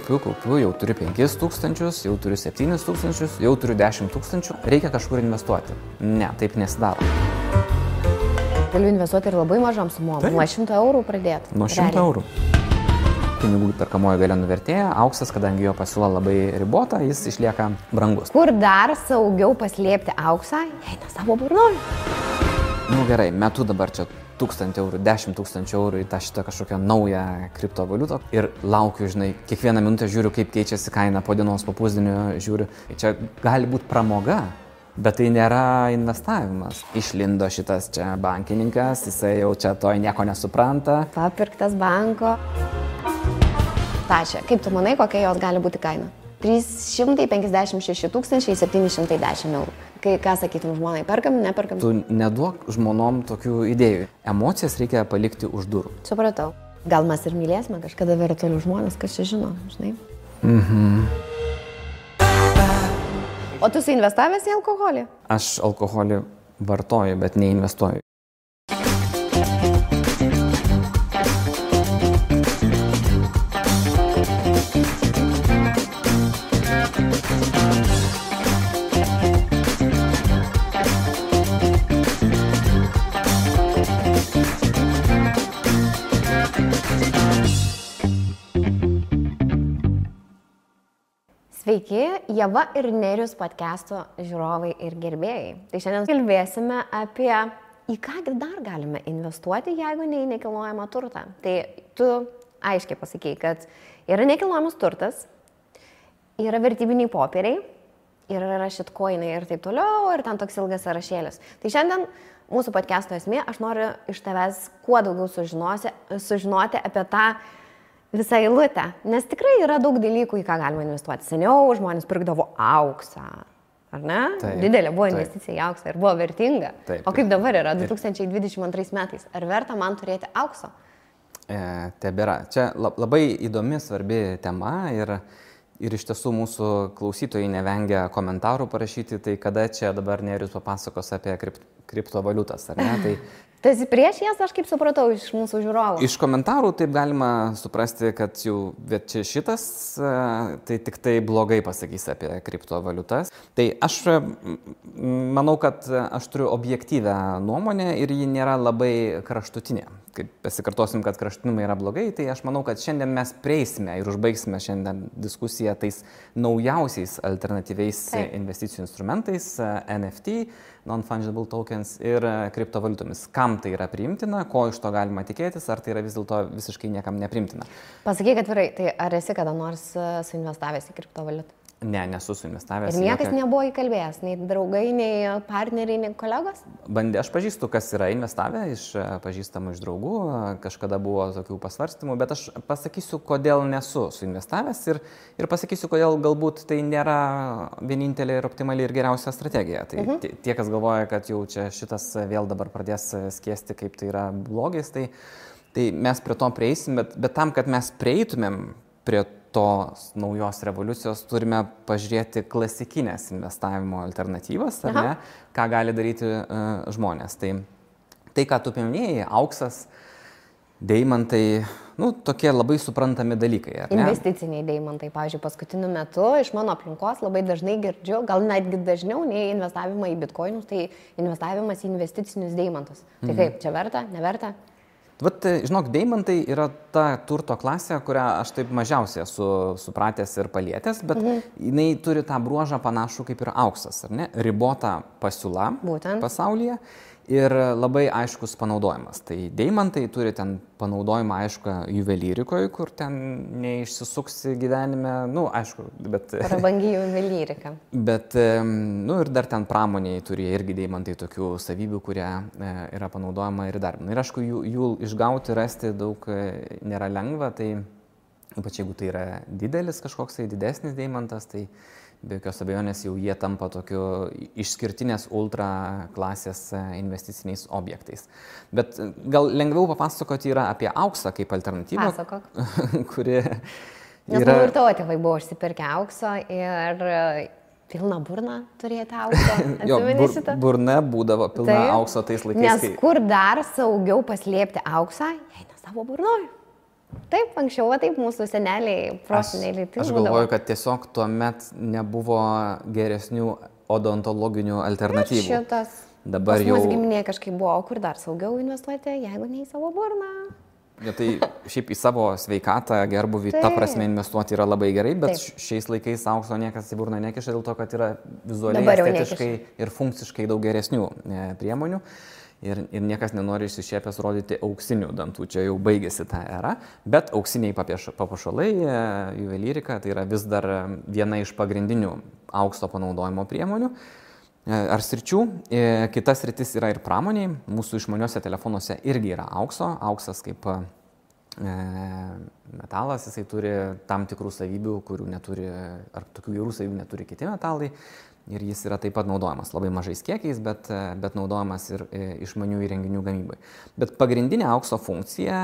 kaupiu, jau turiu 5 tūkstančius, jau turiu 7 tūkstančius, jau turiu 10 tūkstančių, reikia kažkur investuoti. Ne, taip nesidaro. Galiu investuoti ir labai mažom sumom, nuo 100 eurų pradėti. Nuo 100 eurų. Pinigų perkamoji galia nuvertėja, auksas, kadangi jo pasiūla labai ribota, jis išlieka brangus. Kur dar saugiau paslėpti auksą, jei ne savo burnoj? Nu gerai, metu dabar čia 1000 eurų, 10 000 eurų į tą šitą kažkokią naują kriptovaliutą ir laukiu, žinai, kiekvieną minutę žiūriu, kaip keičiasi kaina, po dienos, po pusdienio žiūriu. Čia gali būti pramoga, bet tai nėra investavimas. Išlindo šitas čia bankininkas, jisai jau čia to nieko nesupranta. Papirktas banko. Tašė, kaip tu manai, kokia jos gali būti kaina? 356 710 eurų. Kai ką sakytum žmonai, perkam, neperkam? Tu neduok žmonom tokių idėjų. Emocijas reikia palikti už durų. Supratau. Gal mes ir mylėsime kažkada virtualių žmonės, kas čia žino, žinai? O tu investavęs į alkoholį? Aš alkoholį vartoju, bet neinvestuoju. Sveiki, Ieva ir Nerijus podcast'o žiūrovai ir gerbėjai. Tai šiandien kalbėsime apie į kągi dar galime investuoti, jeigu ne į nekilnojamą turtą. Tai tu aiškiai pasakei, kad yra nekilnojamas turtas, yra vertybiniai popieriai, yra shitcoinai ir taip toliau, ir ten toks ilgas sąrašėlis. Tai šiandien mūsų podcast'o esmė, aš noriu iš tavęs kuo daugiau sužinoti apie tą visą eilutę, nes tikrai yra daug dalykų, į ką galima investuoti. Seniau žmonės pirkdavo auksą, ar ne? Taip, didelė buvo investicija į auksą ir buvo vertinga. Taip, o kaip dabar yra 2022 metais? Ar verta man turėti aukso? Tebėra. Čia labai įdomi, svarbi tema ir iš tiesų mūsų klausytojai nevengia komentarų parašyti, tai kada čia dabar Nerijus papasakos apie kriptovaliutas, ar ne? Tai tu esi prieš jas, aš kaip supratau, iš mūsų žiūrovų. Iš komentarų taip galima suprasti, kad jau čia šitas, tai tik tai blogai pasakys apie kriptovaliutas. Tai aš manau, kad aš turiu objektyvę nuomonę ir ji nėra labai kraštutinė. Kaip pasikartosim, kad kraštutinumai yra blogai, tai aš manau, kad šiandien mes prieisime ir užbaigsime šiandien diskusiją tais naujausiais alternatyviais investicijų instrumentais, NFT, non-fungible tokens ir kriptovaliutomis. Kam tai yra priimtina, ko iš to galima tikėtis, ar tai yra vis dėlto visiškai niekam nepriimtina. Pasakyk atvirai, tai ar esi kada nors suinvestavęs į kriptovaliutą? Ne, nesu suinvestavęs. Ir niekas nebuvo įkalbėjęs, nei draugai, nei partneriai, nei kolegos? Bandė, aš pažįstu, kas yra investavę iš pažįstamų, iš draugų, kažkada buvo tokių pasvarstymų, bet aš pasakysiu, kodėl nesu suinvestavęs ir pasakysiu, kodėl galbūt tai nėra vienintelė ir optimali ir geriausia strategija. Tai tie, kas galvoja, kad jau čia šitas vėl dabar pradės skiesti, kaip tai yra blogis, tai mes prie to prieisim, bet tam, kad mes prieitumėm prie tos naujos revoliucijos, turime pažiūrėti klasikinės investavimo alternatyvas, ar ne, ką gali daryti žmonės. Tai, ką tu paminėjai, auksas, deimantai, tokie labai suprantami dalykai, ar ne? Investiciniai deimantai, pavyzdžiui, paskutiniu metu iš mano aplinkos labai dažnai girdžiu, gal netgi dažniau nei investavimą į bitkoinus, tai investavimas į investicinius deimantus. Tai kaip, čia verta, neverta? Vat, žinok, deimantai yra ta turto klasė, kurią aš taip mažiausiai esu supratęs ir palietęs, bet jinai turi tą bruožą panašų kaip ir auksas, ar ne? Ribota pasiūla pasaulyje ir labai aiškus panaudojimas. Tai deimantai turi ten panaudojimą aišku juvelyrikoje, kur ten neišsisuksi gyvenime, aišku, bet prabangi juvelyrika. Bet, ir dar ten pramoniai turi irgi deimantai tokių savybių, kurie yra panaudojama ir dar. Ir aišku, jų išgauti, rasti daug nėra lengva, tai ypač jeigu tai yra didelis kažkoks didesnis deimantas, tai be jokios abejonės jau jie tampa tokiu išskirtinės ultra klasės investiciniais objektais. Bet gal lengviau papasakoti yra apie auksą kaip alternatyvą, kuri yra... Nes man ir tavo tėvai buvo užsipirkę aukso ir pilną burną turėti aukso. Jo, burna būdavo pilna aukso tais laikais. Nes kur dar saugiau paslėpti auksą, jei ne savo burnoj? Taip, anksčiau, taip mūsų seneliai, proseneliai. Aš galvoju, kad tiesiog tuomet nebuvo geresnių odontologinių alternatyvų. Šitas. Dabar Pas jau... mūsų giminė kažkaip buvo, kur dar saugiau investuoti, jeigu ne į savo burną. Ja, tai šiaip į savo sveikatą, gerbuvį, ta prasme investuoti yra labai gerai, bet šiais laikais aukso niekas į burną nekiša dėl to, kad yra vizualiai, estetiškai ir funkciškai daug geresnių priemonių. Ir niekas nenori išsišiepęs rodyti auksinių dantų, čia jau baigėsi ta era, bet auksiniai papuošalai, juvelyrika, tai yra vis dar viena iš pagrindinių aukso panaudojimo priemonių ar sričių. Kitas sritis yra ir pramoniai, mūsų išmaniuose telefonuose irgi yra aukso, auksas kaip metalas, jisai turi tam tikrų savybių, kurių neturi, ar tokių gerų savybių neturi kiti metalai. Ir jis yra taip pat naudojamas labai mažais kiekiais, bet naudojamas ir išmanių įrenginių gamybai. Bet pagrindinė aukso funkcija,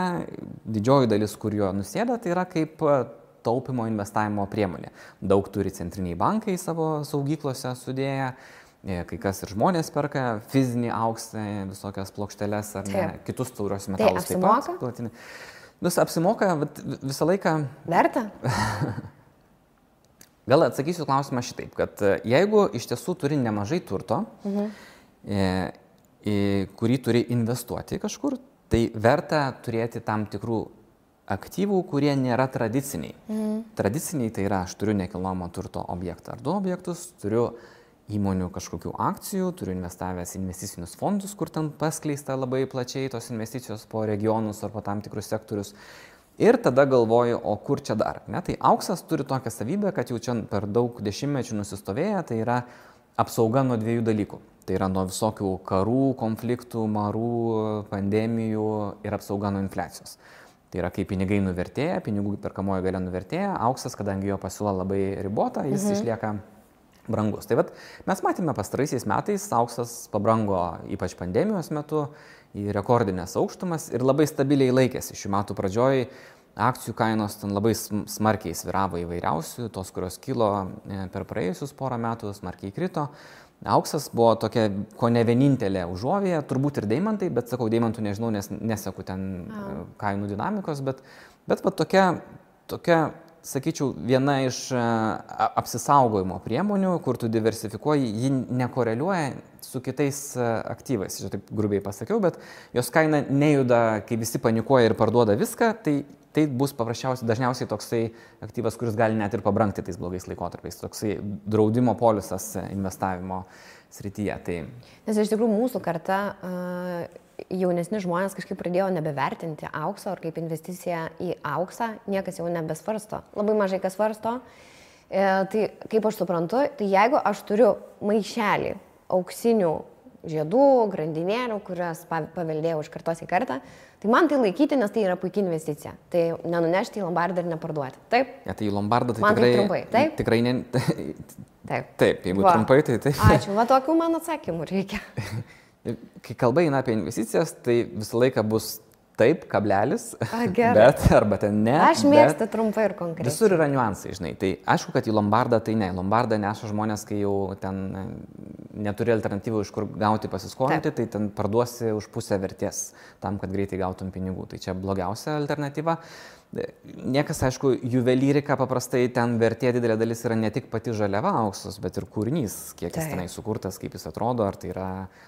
didžioji dalis, kur jo nusėda, tai yra kaip taupimo investavimo priemonė. Daug turi centriniai bankai savo saugyklose sudėję, kai kas ir žmonės perka fizinį auksą, visokias plokšteles ar ne, kitus taurios metalus. Tai apsimoka? Taip, apsimoka, visą laiką... Verta? Gal atsakysiu klausimą šitaip, kad jeigu iš tiesų turi nemažai turto, kurį turi investuoti kažkur, tai verta turėti tam tikrų aktyvų, kurie nėra tradiciniai. Tradiciniai tai yra, aš turiu nekilnojamo turto objektą ar du objektus, turiu įmonių kažkokių akcijų, turiu investavęs investicinius fondus, kur ten paskleista labai plačiai tos investicijos po regionus ar po tam tikrus sektorius. Ir tada galvoju, o kur čia dar? Ne? Tai auksas turi tokią savybę, kad jau čia per daug dešimtmečių nusistovėję, tai yra apsauga nuo dviejų dalykų. Tai yra nuo visokių karų, konfliktų, marų, pandemijų ir apsauga nuo infliacijos. Tai yra, kai pinigai nuvertėja, pinigų perkamoji galia nuvertėja, auksas, kadangi jo pasiūla labai ribota, jis išlieka brangus. Tai vat, mes matėme pastaraisiais metais, auksas pabrango ypač pandemijos metu į rekordinės aukštumas ir labai stabiliai laikėsi. Šių metų pradžioj akcijų kainos ten labai smarkiai sviravo įvairiausių, tos, kurios kilo per praėjusius porą metų, smarkiai krito. Auksas buvo tokia, ko ne vienintelė užuovėje, turbūt ir deimantai, bet sakau, deimantų nežinau, nes neseku ten kainų dinamikos, bet va tokia, sakyčiau, viena iš apsisaugojimo priemonių, kur tu diversifikuoji, ji nekoreliuoja su kitais aktyvais. Čia taip grubiai pasakiau, bet jos kaina nejuda, kai visi panikuoja ir parduoda viską, tai bus dažniausiai toksai aktyvas, kuris gali net ir pabrangti tais blogais laikotarpiais. Toksai draudimo polisas investavimo srityje. Tai... Nes iš tikrųjų mūsų karta... jaunesni žmonės kažkaip pradėjo nebevertinti aukso ar kaip investiciją į auksą, niekas jau nebesvarsto. Labai mažai kas svarsto. Tai kaip aš suprantu, tai jeigu aš turiu maišelį auksinių žiedų, grandinėlių, kurias paveldėjau iš kartos į kartą, tai man tai laikyti, nes tai yra puikia investicija. Tai nenunešti į lombardą ir neparduoti. Taip? Ja, tai į lombardą tai man tikrai... Tai trumpai, taip? Tikrai ne... Taip, jeigu trumpai, tai taip. Ačiū, va tokių man atsakymų reikia. Kai kalba eina apie investicijas, tai visą laiką bus taip, kablelis, gerai. Bet arba ten ne. Aš mėgstu trumpai ir konkrečiai. Visur yra niuansai, žinai. Tai aišku, kad į lombardą tai ne. Lombardą neša žmonės, kai jau ten neturi alternatyvų, iš kur gauti pasiskolinti, tai ten parduosi už pusę vertės tam, kad greitai gautum pinigų. Tai čia blogiausia alternatyva. Niekas, aišku, juvelyrika paprastai ten vertė didelė dalis yra ne tik pati žaliava auksas, bet ir kūrinys, kiek jis tenai sukurtas, kaip jis atrodo, ar tai yra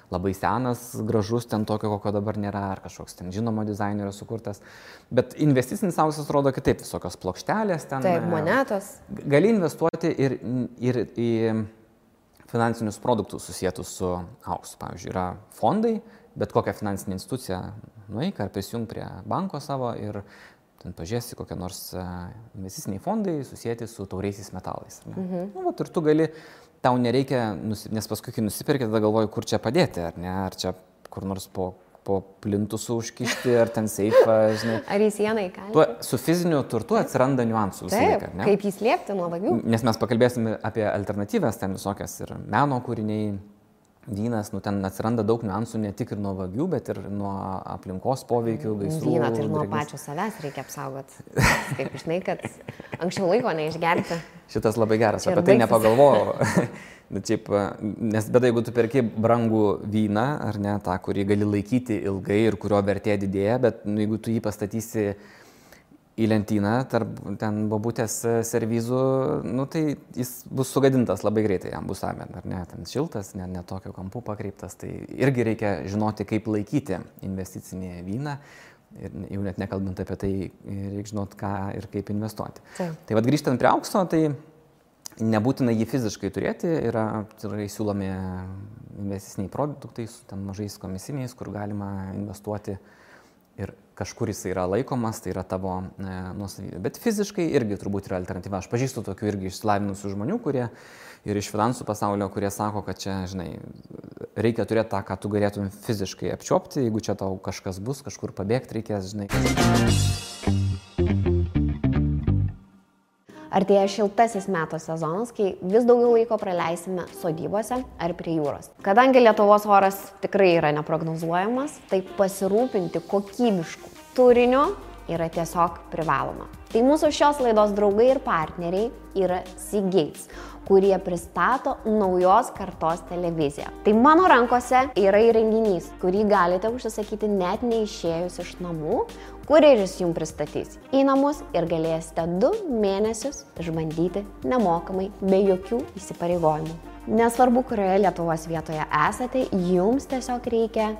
labai senas, gražus, ten tokio, kokio dabar nėra, ar kažkoks ten žinomo dizainerio sukurtas. Bet investicinis auksas rodo kitaip, visokios plokštelės ten. Taip, monetos. Gali investuoti ir į finansinius produktus susietus su auksu. Pavyzdžiui, yra fondai, bet kokią finansinę instituciją nueik ar prisijung prie banko savo ir ten pažiūrėsi kokie nors investiciniai fondai susijęti su tauriaisiais metalais. Nu, vat, ir tu gali, tau nereikia, nes paskui, kai nusipirki, tada galvoji, kur čia padėti, ar ne, ar čia kur nors po plintusų užkišti, ar ten seifą, žinai. Ar į sieną įkalti. Su fiziniu turtu atsiranda niuansų visą laiką, ne? Kaip jį slėpti nuo vagių. Nes mes pakalbėsime apie alternatyvas, ten visokias ir meno kūriniai, vynas, nu ten atsiranda daug niuansų ne tik ir nuo vagių, bet ir nuo aplinkos poveikių, gaisrų. Vyną tai ir nuo pačio savęs reikia apsaugoti. Kaip žinai, kad anksčiau laiko neišgerti. Šitas labai geras, apie tai nepagalvojau. Nes bet jeigu tu perki brangų vyną, ar ne, tą, kurį gali laikyti ilgai ir kurio vertė didėja, bet jeigu tu jį pastatysi į lentyną tarp ten bobutės servizų, nu, tai jis bus sugadintas labai greitai, jam bus amen, ar ne, ten šiltas, ne tokio kampu pakreiptas, tai irgi reikia žinoti, kaip laikyti investicinį vyną ir jau net nekalbant apie tai, reikia žinoti, ką ir kaip investuoti. Tai vad grįžtant prie aukso, tai nebūtina jį fiziškai turėti, yra siūlomi investiciniai produktai su ten mažais komisiniais, kur galima investuoti ir kažkur jis yra laikomas, tai yra tavo nuosavybė. Bet fiziškai irgi turbūt yra alternatyva. Aš pažįstu tokių irgi išsilavinusių žmonių, kurie ir iš finansų pasaulio, kurie sako, kad čia, žinai, reikia turėti tą, ką tu galėtum fiziškai apčiopti, jeigu čia tau kažkas bus, kažkur pabėgti reikės, žinai. Artėja šiltasis metų sezonas, kai vis daugiau laiko praleisime sodybose ar prie jūros. Kadangi Lietuvos oras tikrai yra neprognozuojamas, tai pasirūpinti kokybišku turiniu yra tiesiog privaloma. Tai mūsų šios laidos draugai ir partneriai yra Seagates, kurie pristato naujos kartos televiziją. Tai mano rankose yra įrenginys, kurį galite užsisakyti net neišėjus iš namų, kurjeris jums pristatys į namus ir galėsite 2 mėnesius išbandyti nemokamai, be jokių įsipareigojimų. Nesvarbu, kurioje Lietuvos vietoje esate, jums tiesiog reikia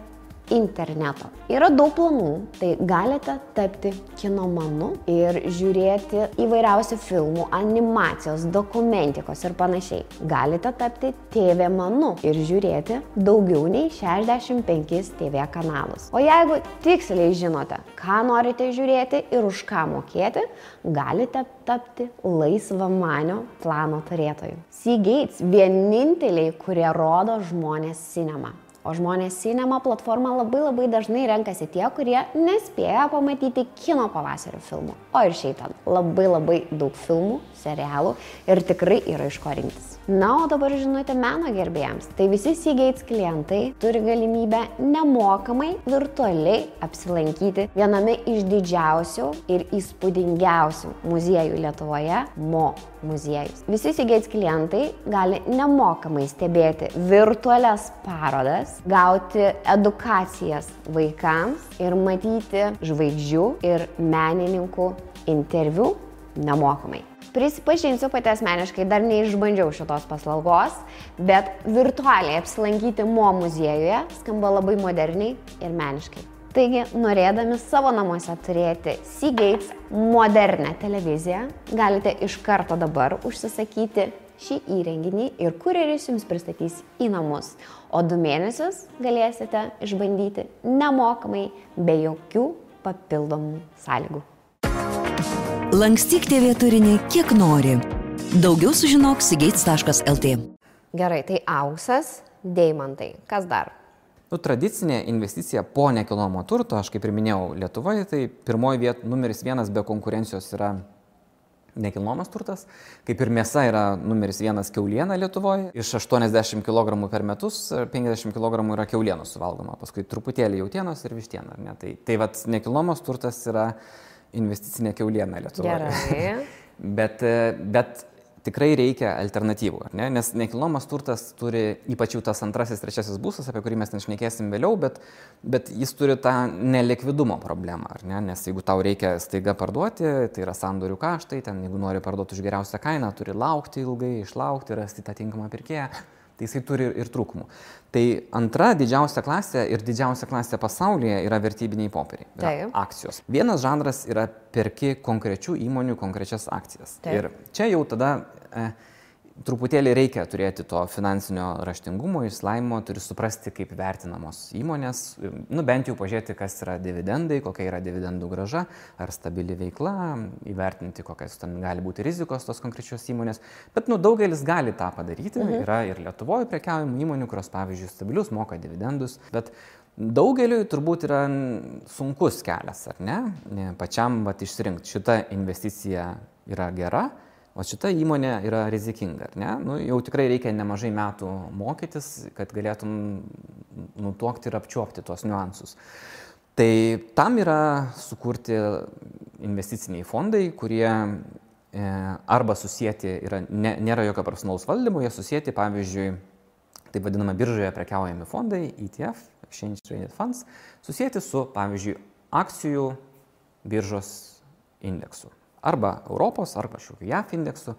interneto. Yra daug planų, tai galite tapti kinomanu ir žiūrėti įvairiausių filmų, animacijos, dokumentikos ir panašiai. Galite tapti TV manu ir žiūrėti daugiau nei 65 TV kanalus. O jeigu tiksliai žinote, ką norite žiūrėti ir už ką mokėti, galite tapti laisvamanio plano turėtoju. Seagates vieninteliai, kurie rodo žmonės cinema. O žmonės cinema platformą labai dažnai renkasi tie, kurie nespėja pamatyti kino pavasario filmų. O ir šiaip ten labai daug filmų, serialų ir tikrai yra iš ko rinktis. Na, o dabar žinote meno gerbėjams. Tai visi Seagates klientai turi galimybę nemokamai virtualiai apsilankyti viename iš didžiausių ir įspūdingiausių muziejų Lietuvoje – Mo muziejus. Visi Seagates klientai gali nemokamai stebėti virtualias parodas, gauti edukacijas vaikams ir matyti žvaigždžių ir menininkų interviu nemokamai. Prisipažinsiu, pati asmeniškai dar neišbandžiau šitos paslaugos, bet virtualiai apsilankyti Mo muziejuje skamba labai moderniai ir meniškai. Taigi, norėdami savo namuose turėti Seagates modernę televiziją, galite iš karto dabar užsisakyti šį įrenginį ir kurjeris jums pristatys į namus. O 2 mėnesius galėsite išbandyti nemokamai, be jokių papildomų sąlygų. Lankstyk TV turinį kiek nori. Daugiau sužinok seagates.lt. Gerai, tai auksas, deimantai. Kas dar? Tradicinė investicija po nekilnojamo turto, aš kaip ir minėjau, Lietuvoje, tai pirmoji vieta numeris 1 be konkurencijos yra nekilnojamas turtas, kaip ir mėsa yra numeris 1 kiauliena Lietuvoje. Iš 80 kg per metus 50 kg yra kiaulienos suvalgoma, paskui truputėlį jautienos ir vištiena. Tai vat nekilnojamas turtas yra investicinė kiauliena Lietuvoje. Gerai. bet tikrai reikia alternatyvų, ar ne? Nes nekilnojamas turtas turi, ypač jau tas 2., 3. būstas, apie kurį mes ten šnekėsim vėliau, bet jis turi tą nelikvidumo problemą, ar ne? Nes jeigu tau reikia staiga parduoti, tai yra sandorių kaštai, ten jeigu nori parduoti už geriausią kainą, turi laukti ilgai, išlaukti, rasti tą tinkamą pirkėją, tai jisai turi ir trūkumų. Tai 2. didžiausia klasė ir didžiausia klasė pasaulyje yra vertybiniai popieriai, akcijos. Vienas žanras yra perki konkrečių įmonių konkrečias akcijas. Ir čia jau tada truputėlį reikia turėti to finansinio raštingumo, išsilavinimo, turi suprasti, kaip vertinamos įmonės, bent jau pažiūrėti, kas yra dividendai, kokia yra dividendų grąža, ar stabili veikla, įvertinti, kokias ten gali būti rizikos tos konkrečios įmonės. Bet daugelis gali tą padaryti, yra ir Lietuvoje prekiaujamų įmonių, kurios, pavyzdžiui, stabilius moka dividendus, bet daugeliui turbūt yra sunkus kelias, ar ne? Pačiam išsirinkti, šita investicija yra gera, o šita įmonė yra rizikinga, ar ne? Jau tikrai reikia nemažai metų mokytis, kad galėtum nutuokti ir apčiuopti tuos niuansus. Tai tam yra sukurti investiciniai fondai, kurie arba susijęti, nėra jokio personalaus valdymo, jie susijęti, pavyzdžiui, taip vadinama biržoje prekiaujami fondai, ETF, Exchange Traded Funds, susijęti su, pavyzdžiui, akcijų biržos indeksų. Arba Europos, arba kažkokiu JAF indeksu.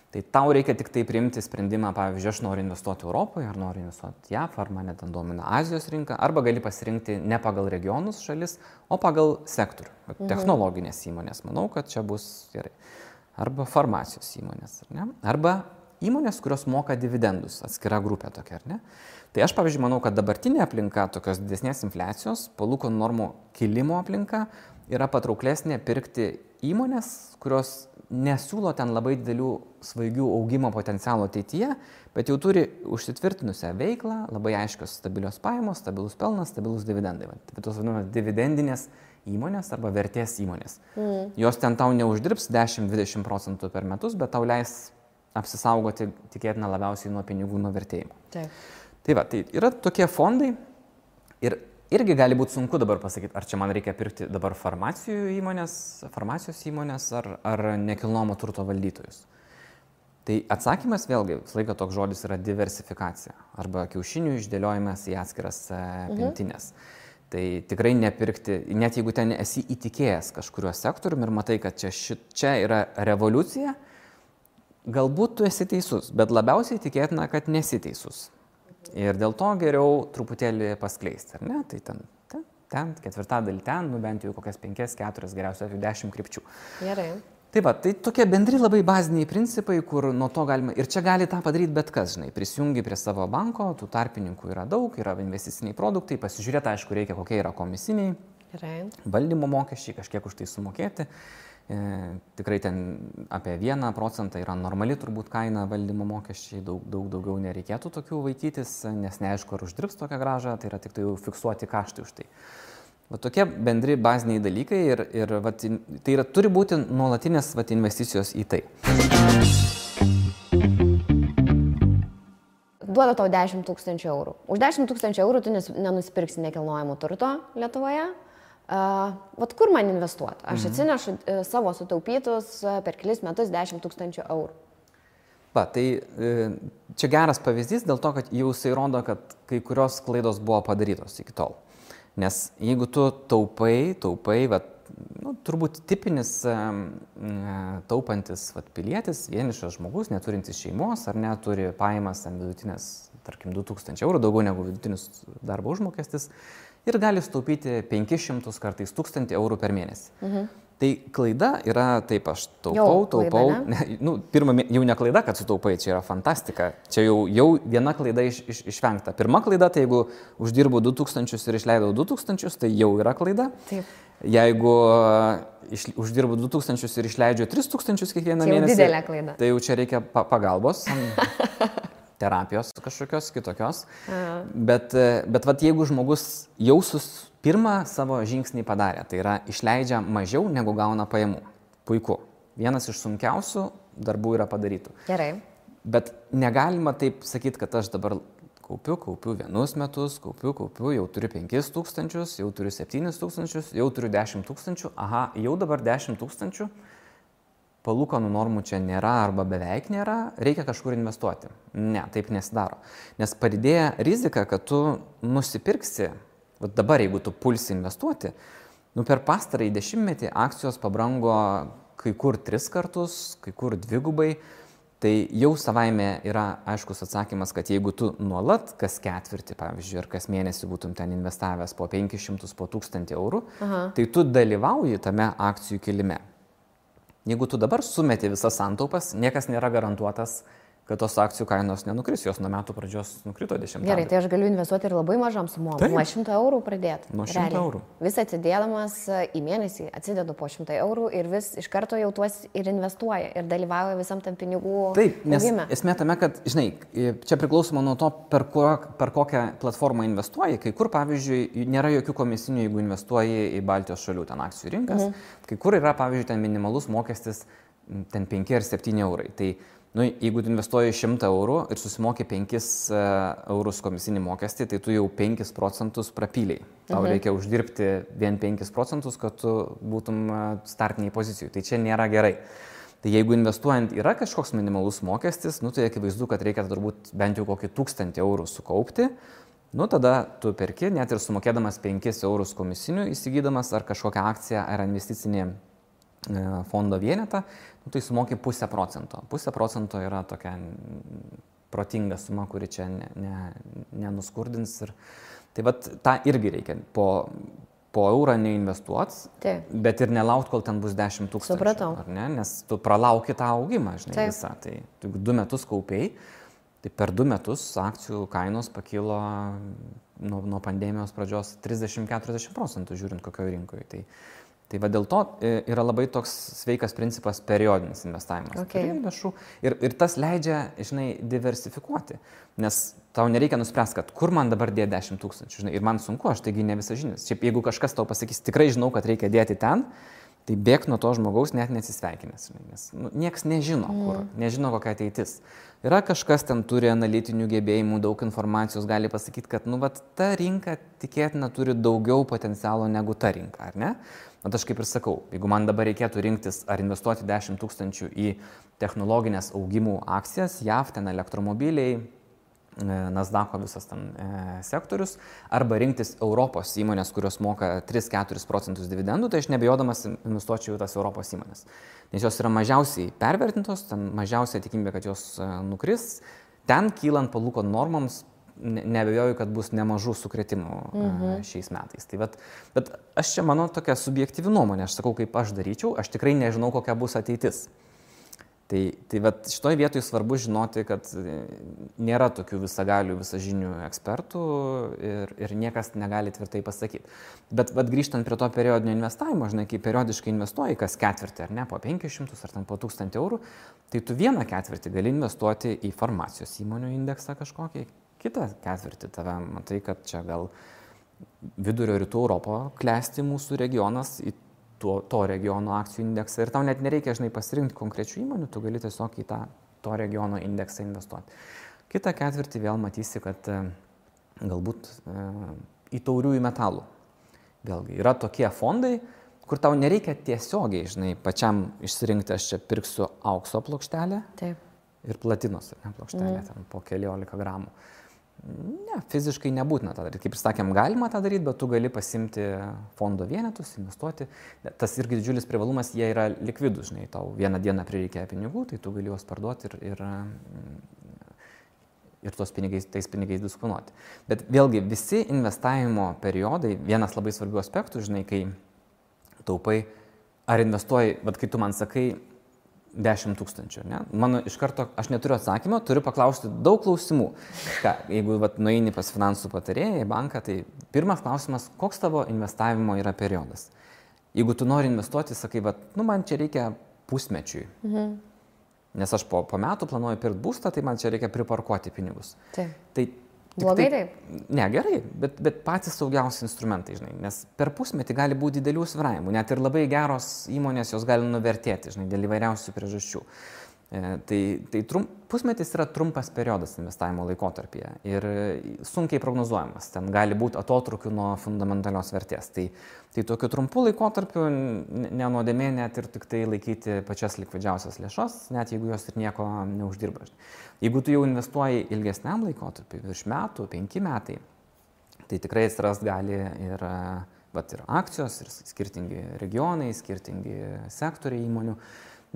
Tai tau reikia tik tai priimti sprendimą, pavyzdžiui, aš noriu investuoti Europoje, ar noriu investuoti JAF, ar mane ten domina Azijos rinka, arba gali pasirinkti ne pagal regionus šalis, o pagal sektorių. Technologinės įmonės, manau, kad čia bus gerai. Arba farmacijos įmonės, ar ne? Arba įmonės, kurios moka dividendus, atskira grupė tokia, ar ne? Tai aš, pavyzdžiui, manau, kad dabartinė aplinka, tokios didesnės infliacijos, palūkanų normų kilimo aplinka, yra patrauklesnė pirkti įmonės, kurios nesiūlo ten labai didelių svaigių augimo potencialo ateityje, bet jau turi užsitvirtinusią veiklą, labai aiškios stabilios pajamos, stabilus pelnas, stabilus dividendai. Tai tos vadinamas dividendinės įmonės arba vertės įmonės. Jos ten tau neuždirbs 10-20% per metus, bet tau leis apsisaugoti tikėtina labiausiai nuo pinigų nuvertėjimo. Tai va, tai yra tokie fondai ir irgi gali būti sunku dabar pasakyti, ar čia man reikia pirkti dabar farmacijos įmonės ar nekilnojamo turto valdytojus. Tai atsakymas vėlgi, visą laiką toks žodis yra diversifikacija arba kiaušinių išdėliojimas į atskiras pintinės. Tai tikrai nepirkti, net jeigu ten esi įtikėjęs kažkuriuo sektoriumi ir matai, kad čia yra revoliucija, galbūt tu esi teisus, bet labiausiai tikėtina, kad nesi teisus. Ir dėl to geriau truputėlį paskleisti, ar ne? Tai ten ketvirtadalį ten, bent jau kokias 5-4, geriausiai 10 krypčių. Gerai. Tai va, tai tokie bendri labai baziniai principai, kur nuo to galima, ir čia gali tą padaryti bet kas, žinai, prisijungi prie savo banko, tų tarpininkų yra daug, yra investiciniai produktai, pasižiūrėti, aišku, reikia kokie yra komisiniai, valdymo mokesčiai, kažkiek už tai sumokėti. Tikrai ten apie 1% yra normali turbūt kaina valdymo mokesčiai, daug daugiau nereikėtų tokių vaikytis, nes neaišku, ar uždirbs tokią grąžą, tai yra tik tai fiksuoti kaštai už tai. Va tokie bendri baziniai dalykai ir va, tai yra, turi būti nuolatinės va, investicijos į tai. Duoda tau 10 000 eurų. Už 10 000 eurų tu nenusipirksi nekilnojamo turto Lietuvoje. Vat kur man investuoti? Aš atsinešu savo sutaupytus per kelis metus 10 000 eurų. Va, tai čia geras pavyzdys dėl to, kad jau jisai rodo, kad kai kurios klaidos buvo padarytos iki tol. Nes jeigu tu taupai, va, turbūt tipinis taupantis va, pilietis, vienišas žmogus, neturintis šeimos ar neturi pajamas vidutinės, tarkim, 2000 eurų, daugiau negu vidutinis darbo užmokestis, ir gali sutaupyti 500 kartais 1000 eurų per mėnesį. Tai klaida yra, taip aš taupau, pirma, jau ne klaida, kad sutaupai, čia yra fantastika, čia jau viena klaida išvengta. Pirma klaida, tai jeigu uždirbu 2000 ir išleidau 2000, tai jau yra klaida. Taip. Jeigu uždirbu 2000 ir išleidžiu 3000 kiekvieną mėnesį, didelė klaida. Tai jau čia reikia pagalbos. Terapijos kažkokios kitokios, bet vat, jeigu žmogus jau pirmą savo žingsnį padarė, tai yra išleidžia mažiau negu gauna pajamų. Puiku. Vienas iš sunkiausių darbų yra padarytų. Gerai. Bet negalima taip sakyti, kad aš dabar kaupiu vienus metus, kaupiu, jau turiu 5000, jau turiu 7000, jau turiu 10 000, aha, jau dabar 10 000. Palūkanų normų čia nėra arba beveik nėra, reikia kažkur investuoti. Ne, taip nesidaro. Nes padidėja rizika, kad tu nusipirksi, dabar jeigu tu pulsi investuoti, per pastarąjį 10-metį akcijos pabrango kai kur 3 kartus, kai kur 2, tai jau savaime yra aiškus atsakymas, kad jeigu tu nuolat kas ketvirtį, pavyzdžiui, ar kas mėnesį būtum ten investavęs po 500, po 1000 eurų, tai tu dalyvauji tame akcijų kilime. Jeigu tu dabar sumeti visas santaupas, niekas nėra garantuotas, kad tos akcijų kainos nenukris, jos nuo metų pradžios nukrito 10. Gerai, tai aš galiu investuoti ir labai mažam sumom, nuo 100 eurų pradėti. Nuo 100 eurų. Vis atsidėdamas į mėnesį, atsidedu po 100 eurų ir vis iš karto jau tuos ir investuoja ir dalyvauja visam tam pinigų. Taip, nes esmė tame, kad, žinai, čia priklausoma nuo to, per kokią platformą investuoji. Kai kur, pavyzdžiui, nėra jokių komisinių, jeigu investuoji į Baltijos šalių ten akcijų rinkas. Kai kur yra, pavyzdžiui, ten minimalus mokestis ten 5 ar 7 eurai. Tai jeigu tu investuoji 100 eurų ir susimoki 5 eurus komisinį mokestį, tai tu jau 5% prapyliai. Tau reikia uždirbti vien 5%, kad tu būtum startiniai pozicijai. Tai čia nėra gerai. Tai jeigu investuojant yra kažkoks minimalus mokestis, tai akivaizdu, kad reikia turbūt bent jau kokį 1000 eurų sukaupti. Tada tu perki, net ir sumokėdamas 5 eurus komisinių, įsigydamas ar kažkokią akciją ar investicinį fondo vienetą, tai sumoki 0,5%. 0,5% yra tokia protinga suma, kuri čia nenuskurdins. Tai vat tą irgi reikia po eurą neinvestuoti, bet ir nelaukti, kol ten bus 10 000. Supratau. Ar ne? Nes tu pralauki tą augimą, žinai, visą. Tai 2 metus kaupiai, tai per 2 metus akcijų kainos pakilo nuo pandemijos pradžios 30-40%, žiūrint kokioje rinkoje. Tai va dėl to yra labai toks sveikas principas periodinis investavimas. Lėšų. Ir tas leidžia, žinai, diversifikuoti. Nes tau nereikia nuspręsti, kad kur man dabar dėti 10 000. Žinai, ir man sunku, aš taigi ne visažinis. Šiaip jeigu kažkas tau pasakys, tikrai žinau, kad reikia dėti ten, tai bėk nuo to žmogaus net nesisveikinęs. Nes nieks nežino, kur, nežino kokia ateitis. Yra kažkas ten turi analitinių gebėjimų, daug informacijos, gali pasakyti, kad ta rinka tikėtina turi daugiau potencialo negu ta rinka, ar ne? Bet aš kaip ir sakau, jeigu man dabar reikėtų rinktis ar investuoti 10 000 į technologinės augimų akcijas, JAV, ten elektromobiliai, Nasdaqo visas ten sektorius, arba rinktis Europos įmonės, kurios moka 3-4% dividendų, tai aš nebejodamas investuočiau į tas Europos įmonės. Nes jos yra mažiausiai pervertintos, ten mažiausiai tikimybė, kad jos nukris, ten kylant palūkanų normoms, nebejoju, kad bus nemažų sukrėtimų šiais metais. Bet aš čia mano tokia subjektyvi nuomonė, aš sakau, kaip aš daryčiau, aš tikrai nežinau, kokia bus ateitis. Tai šitoj vietoj svarbu žinoti, kad nėra tokių visagalių, visažinių ekspertų ir niekas negali tvirtai pasakyti. Bet grįžtant prie to periodinio investavimo, žinai, kai periodiškai investuoji kas ketvirtį, ar ne, po 500 ar ten po 1000 eurų, tai tu vieną ketvirtį gali investuoti į farmacijos įmonių indeksą kažkokį, kitą ketvirtį tave matai, kad čia gal vidurio rytų Europo klesti mūsų regionas į to regiono akcijų indeksą ir tau net nereikia, žinai, pasirinkti konkrečių įmonių, tu gali tiesiog į to regiono indeksą investuoti. Kitą ketvirtį vėl matysi, kad galbūt į tauriųjų metalų. Vėlgi, yra tokie fondai, kur tau nereikia tiesiogiai, žinai, pačiam išsirinkti, aš čia pirksiu aukso plokštelę ir platinos plokštelę ten po 14 gramų. Ne, fiziškai nebūtina tą daryti. Kaip ir sakėm, galima tą daryti, bet tu gali pasimti fondo vienetus, investuoti. Tas irgi didžiulis privalumas, jie yra likvidus, žinai, tau vieną dieną prireikia pinigų, tai tu gali juos parduoti ir tais pinigais disponuoti. Bet vėlgi, visi investavimo periodai, vienas labai svarbių aspektų, žinai, kai taupai, ar investuoji, bet kai tu man sakai, 10 000, ne? Mano iš karto, aš neturiu atsakymo, turiu paklausti daug klausimų. Jeigu nueini pas finansų patarėją į banką, tai pirmas klausimas, koks tavo investavimo yra periodas. Jeigu tu nori investuoti, sakai, man čia reikia pusmečiui. Nes aš po metų planuoju pirkti būstą, tai man čia reikia priparkuoti pinigus. Tai blogai taip? Ne, gerai, bet patys saugiausi instrumentai, žinai, nes per pusmetį gali būti didelių svyravimų, net ir labai geros įmonės jos gali nuvertėti, žinai, dėl įvairiausių priežasčių. Pusmetis yra trumpas periodas investavimo laikotarpyje ir sunkiai prognozuojamas, ten gali būti atotrukių nuo fundamentalios vertės. Tai tokiu trumpu laikotarpiu nenuodėmė net ir tik tai laikyti pačias likvidžiausias lėšas, net jeigu jos ir nieko neuždirba. Jeigu tu jau investuoji ilgesniam laikotarpiu, virš metų, 5 metai, tai tikrai atsiras gali ir akcijos, ir skirtingi regionai, skirtingi sektoriai įmonių.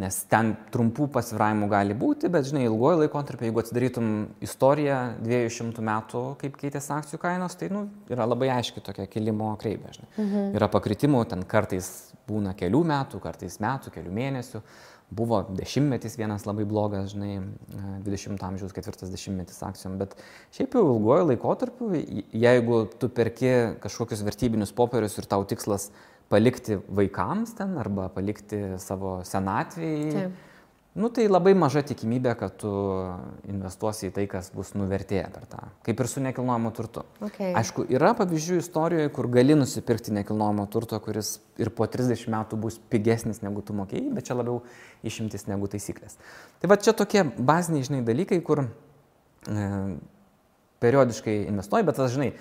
Nes ten trumpų pasvyravimų gali būti, bet, žinai, ilgojo laikotarpio, jeigu atsidarytum istoriją 200 metų, kaip keitėsi akcijų kainos, tai yra labai aiški tokia kilimo kreivė. Yra pakritimų, ten kartais būna kelių metų, kelių mėnesių. Buvo dešimtmetis vienas labai blogas, žinai, 20 amžiaus 40 akcijom, bet šiaip jau ilgojo laikotarpiu, jeigu tu perki kažkokius vertybinius popierius ir tau tikslas palikti vaikams ten arba palikti savo senatvėje, tai labai maža tikimybė, kad tu investuosi į tai, kas bus nuvertėję per tą. Kaip ir su nekilnojamo turtu. Aišku, yra pavyzdžių istorijoje, kur gali nusipirkti nekilnojamo turto, kuris ir po 30 metų bus pigesnis negu tu mokėjai, bet čia labiau išimtis negu taisyklės. Tai čia tokie baziniai, žinai, dalykai, kur periodiškai investuoji, bet tas, žinai,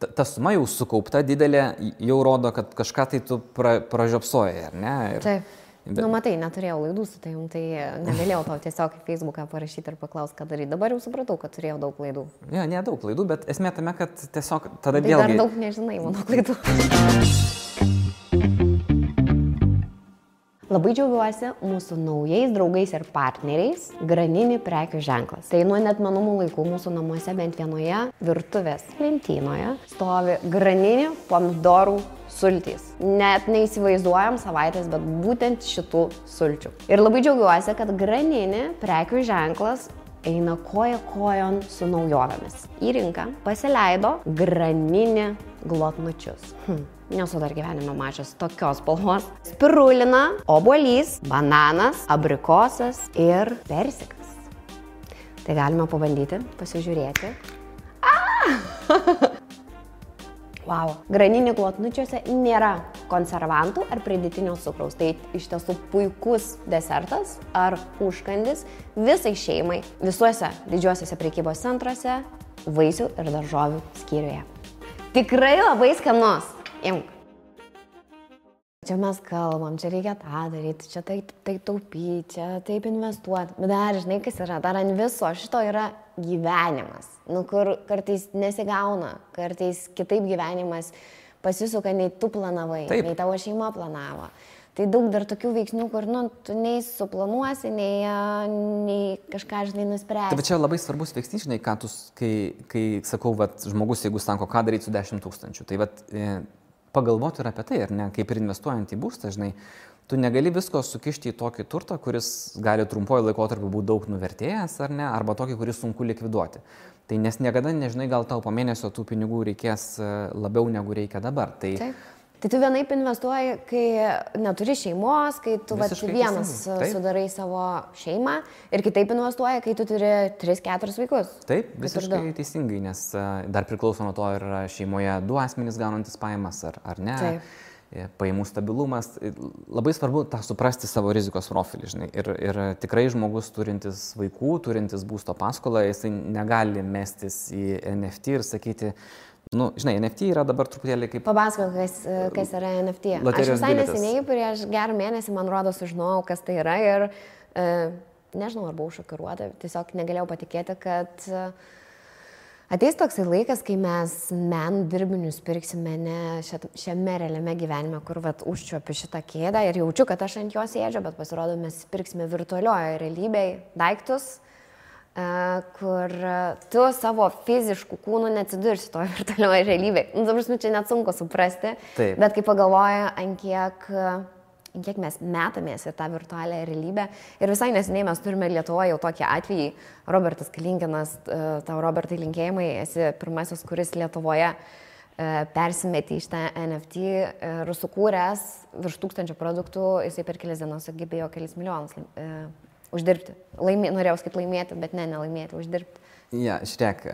ta suma jau sukaupta didelė, jau rodo, kad kažką tai tu pražiopsojai, ar ne? Taip. Matai, neturėjau laidų su tavim, tai negalėjau tau tiesiog į Facebooką parašyti ir paklausti, ką daryti. Dabar jau supratau, kad turėjau daug laidų. Ne daug laidų, bet esmė tame, kad tiesiog tada vėlgi... Dar daug nežinai mano klaidų. Labai džiaugiuosi mūsų naujais draugais ir partneriais Granini prekių ženklas. Tai nuo neatmenamų laikų mūsų namuose bent vienoje virtuvės lentynoje stovi Granini pomidorų sultys. Net neįsivaizduojam savaitės, bet būtent šitų sulčių. Ir labai džiaugiuosi, kad Granini prekių ženklas eina koja kojon su naujovėmis. Į rinką pasileido Granini glotnučius. Nesu dar gyvenime mačius tokios spalvos. Spirulina, obuolys, bananas, abrikosas ir persikas. Tai galime pabandyti, pasižiūrėti. Wow. Granini glotnučiuose nėra konservantų ar pridėtinio cukraus. Tai iš tiesų puikus desertas ar užkandis visai šeimai visuose didžiuosiuose prekybos centruose, vaisių ir daržovių skyriuje. Tikrai labai skanus. Imk. Čia mes kalbam, čia reikia tą daryti, čia taip taupyti, čia taip investuoti. Bet dar, žinai, kas yra, dar ant viso šito yra gyvenimas. Kur kartais nesigauna, kartais kitaip gyvenimas pasisuka, nei tu planavai, nei tavo šeima planavo. Tai daug dar tokių veiksnių, kur, tu nei suplanuosi, nei kažką, žinai, nuspręsi. Tai čia labai svarbus veiksnys, žinai, kai sakau, žmogus, jeigu sako, ką daryti su 10 000, tai pagalvoti ir apie tai, ar ne, kaip ir investuojant į būstą, žinai, tu negali visko sukišti į tokį turtą, kuris gali trumpuoju laikotarpiu būti daug nuvertėjęs, ar ne, arba tokį, kuris sunku likviduoti. Tai nes niekada nežinai, gal tau po mėnesio tų pinigų reikės labiau negu reikia dabar. Tai tu vienaip investuoji, kai neturi šeimos, kai tu vienas sudarai savo šeimą ir kitaip investuoji, kai tu turi 3-4 vaikus. Taip, visiškai teisingai, nes dar priklauso nuo to, ar šeimoje 2 asmenys gaunantis pajamas, ar ne. Taip. Pajamų stabilumas. Labai svarbu tą suprasti savo rizikos profilį, žinai. Ir tikrai žmogus turintis vaikų, turintis būsto paskolą, jisai negali mestis į NFT ir sakyti, žinai, NFT yra dabar truputėlį kaip... Papasakok, kas yra NFT. Aš visai neseniai, prieš gerą mėnesį, man rodo, sužinojau, kas tai yra ir nežinau, ar buvau šokiruota, tiesiog negalėjau patikėti, kad ateis toksai laikas, kai mes menų dirbinius pirksime ne šiame realiame gyvenime, kur užčiuopiu šitą kėdę ir jaučiu, kad aš ant jos sėdžiu, bet pasirodo, mes pirksime virtualioje realybėje daiktus, kur tu savo fiziškų kūnų neatsidursi toje virtualioje realybėje. Čia net sunku suprasti, bet kai pagalvoju, ant kiek mes metamės į tą virtualią realybę. Ir visai neseniai mes turime Lietuvoje jau tokį atvejį. Robertas Kalinkinas, tau Robertai linkėjimai, esi pirmasis, kuris Lietuvoje persimetė iš tą NFT ir sukūręs virš 1000 produktų, jisai per kelias dienas sugebėjo kelis milijonus uždirbti. Norėjau kaip laimėti, bet nelaimėti, uždirbti. Ja, žiūrėk.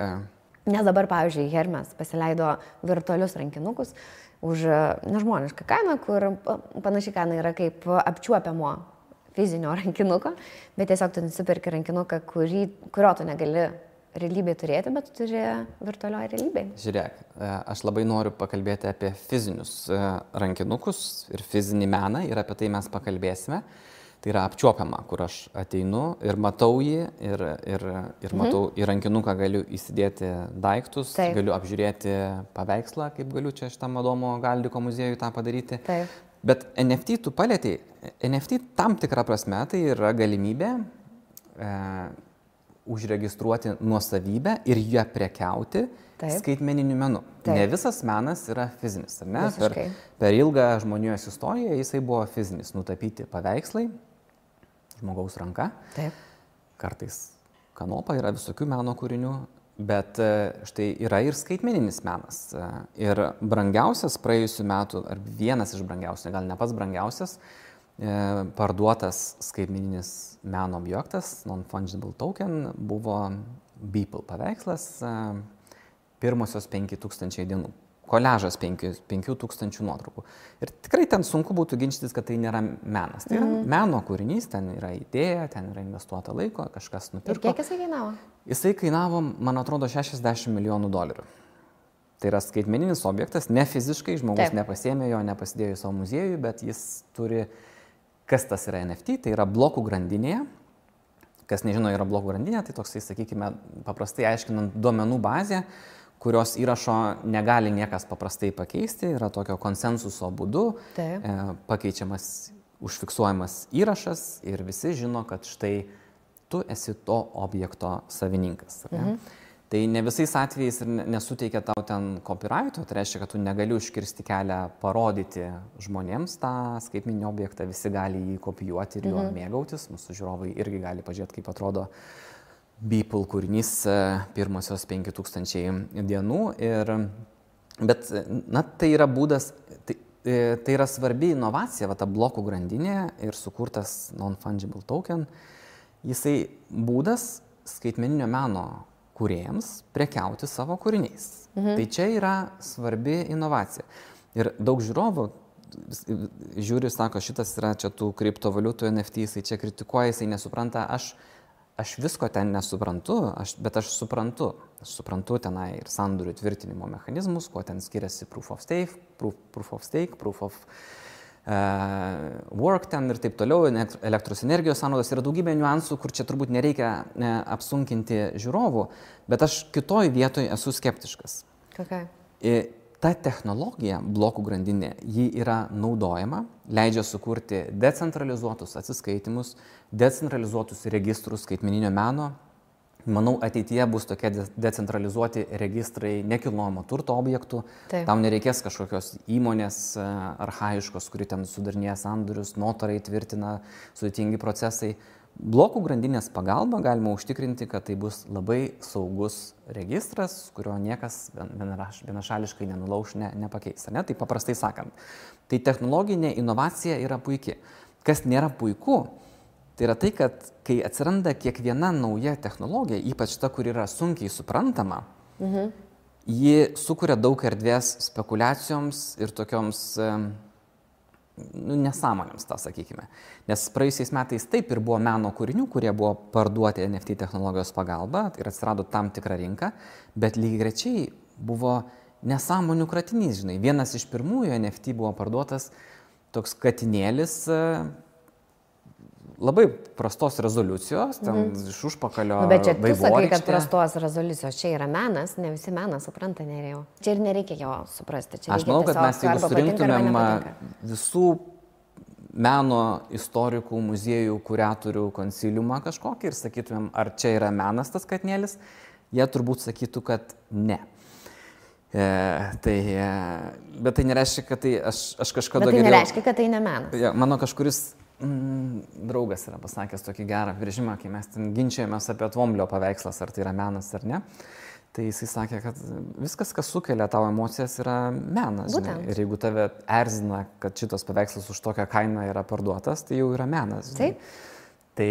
Nes dabar, pavyzdžiui, Hermes pasileido virtualius rankinukus už nežmonišką kainą, kur panašiai kaina yra kaip apčiuopiamo fizinio rankinuko, bet tiesiog tu nusipirki rankinuką, kurio tu negali realybėje turėti, bet tu turi virtualioje realybėje. Žiūrėk, aš labai noriu pakalbėti apie fizinius rankinukus ir fizinį meną ir apie tai mes pakalbėsime. Tai yra apčiuopiama, kur aš ateinu ir matau jį ir matau į rankinuką galiu įsidėti daiktus, galiu apžiūrėti paveikslą, kaip galiu čia šitam Adomo Galdiko muziejui tą padaryti. Taip. Bet NFT tu palietei. NFT tam tikrą prasme tai yra galimybė užregistruoti nuosavybę ir ją prekiauti skaitmeniniu menu. Ne visas menas yra fizinis, ar ne? Per ilgą žmonijos istoriją jisai buvo fizinis, nutapyti paveikslai, žmogaus ranka. Taip. Kartais kanopa, yra visokių meno kūrinių, bet štai yra ir skaitmeninis menas. Ir brangiausias praėjusių metų, ar vienas iš brangiausių, gal ne pats brangiausias, parduotas skaitmeninis meno objektas, non-fungible token, buvo Beeple paveikslas, pirmosios 5000 dienų. Koliažas 5000 nuotraukų. Ir tikrai ten sunku būtų ginčytis, kad tai nėra menas. Tai yra meno kūrinys, ten yra idėja, ten yra investuota laiko, kažkas nupirko. Ir kiek jisai kainavo? Jisai kainavo, man atrodo, $60 milijonų. Tai yra skaitmeninis objektas, ne fiziškai, žmogus nepasiėmė jo, nepasidėjo į savo muziejų, bet jis turi, kas tas yra NFT, tai yra blokų grandinėje. Kas nežino, yra blokų grandinė, tai toksai, sakykime, paprastai aiškinant duomenų bazę, kurios įrašo negali niekas paprastai pakeisti, yra tokio konsensuso būdu, pakeičiamas užfiksuojamas įrašas ir visi žino, kad štai tu esi to objekto savininkas. Tai ne visais atvejais ir nesuteikia tau ten copyrighto, tai reiškia, kad tu negali užkirsti kelią parodyti žmonėms tą skaitmeninį objektą, visi gali jį kopijuoti ir juo mėgautis, mūsų žiūrovai irgi gali pažiūrėti, kaip atrodo Beeple kūrinys pirmosios 5000 dienų. Bet tai yra būdas, tai yra svarbi inovacija, ta blokų grandinė ir sukurtas non-fungible token. Jisai būdas skaitmeninio meno kūrėjams prekiauti savo kūriniais. Tai čia yra svarbi inovacija. Ir daug žiūrovų žiūri, sako, šitas yra čia tų kriptovaliutų NFT, jisai čia kritikuoja, jisai nesupranta, aš visko ten nesuprantu, bet aš suprantu tenai ir sandorių tvirtinimo mechanizmus, kuo ten skiriasi proof of stake, proof of work ten ir taip toliau, elektros energijos sąnaudos, yra daugybė niuansų, kur čia turbūt nereikia apsunkinti žiūrovų, bet aš kitoj vietoj esu skeptiškas. Ta technologija, blokų grandinė, ji yra naudojama, leidžia sukurti decentralizuotus atsiskaitimus, decentralizuotus registrus skaitmeninio meno. Manau, ateityje bus tokie decentralizuoti registrai nekilnojamo turto objektų. Tam nereikės kažkokios įmonės archaiškos, kuri ten sudarinėja sandorius, notarai tvirtina, sudėtingi procesai. Blokų grandinės pagalba galima užtikrinti, kad tai bus labai saugus registras, kurio niekas vienašališkai nenulauš, nepakeis. Ne? Tai paprastai sakant, tai technologinė inovacija yra puiki. Kas nėra puiku, tai yra tai, kad kai atsiranda kiekviena nauja technologija, ypač ta, kur yra sunkiai suprantama, ji sukuria daug erdvės spekulacijoms ir tokioms nesąmonėms, tą sakykime. Nes praėjusiais metais taip ir buvo meno kūrinių, kurie buvo parduoti NFT technologijos pagalba ir atsirado tam tikra rinka, bet lygiagrečiai buvo nesąmonių kratinys, žinai. Vienas iš pirmųjų NFT buvo parduotas toks katinėlis, labai prastos rezoliucijos, ten iš užpakalio bet čia tu sakai, kad prastos rezoliucijos, čia yra menas, ne visi meną supranta, Nerijau. Čia ir nereikia jo suprasti. Čia aš manau, kad mes jeigu surinktumėm visų meno istorikų, muziejų, kuratorių konsiliumą kažkokį ir sakytumėm, ar čia yra menas tas katinėlis, jie turbūt sakytų, kad ne. Bet tai nereiškia, kad tai aš kažkada geriau... Bet tai nereiškia, kad tai ne menas. Mano kažkuris draugas yra pasakęs tokį gerą apibrėžimą, kai mes ten ginčiamės apie Tvomblio paveikslas, ar tai yra menas ar ne. Tai jisai sakė, kad viskas, kas sukelia tavo emocijas, yra menas. Ir jeigu tave erzina, kad šitas paveikslas už tokią kainą yra parduotas, tai jau yra menas. Taip. Tai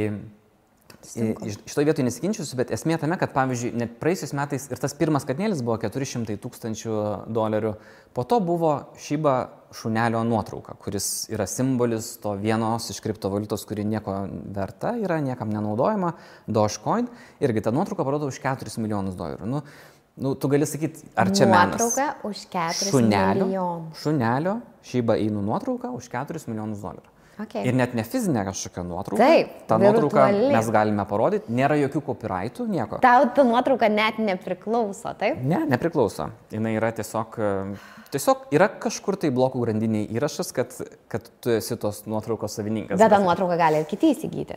šitoje vietoje nesiginčiusiu, bet esmė tame, kad pavyzdžiui, net praėjusiais metais ir tas pirmas katinėlis buvo $400,000, po to buvo Shiba šunelio nuotrauka, kuris yra simbolis to vienos iš kriptovaliutos, kuri nieko verta, yra niekam nenaudojama, Dogecoin, irgi ta nuotrauka parodo už $4 milijonus. Tu gali sakyti, ar čia menas? Nuotrauka už $4 milijonų. Šunelio Shiba Inu nuotrauka už $4 milijonus. Okay. Ir net ne fizinė kažkokia nuotrauka. Taip, tą nuotrauką mes galime parodyti, nėra jokių copyrightų, nieko. Tau ta nuotrauka net nepriklauso, taip? Ne, nepriklauso. Jis yra tiesiog yra kažkur tai blokų grandiniai įrašas, kad tu esi tos nuotraukos savininkas. Bet tą nuotrauką gali ir kiti įsigyti.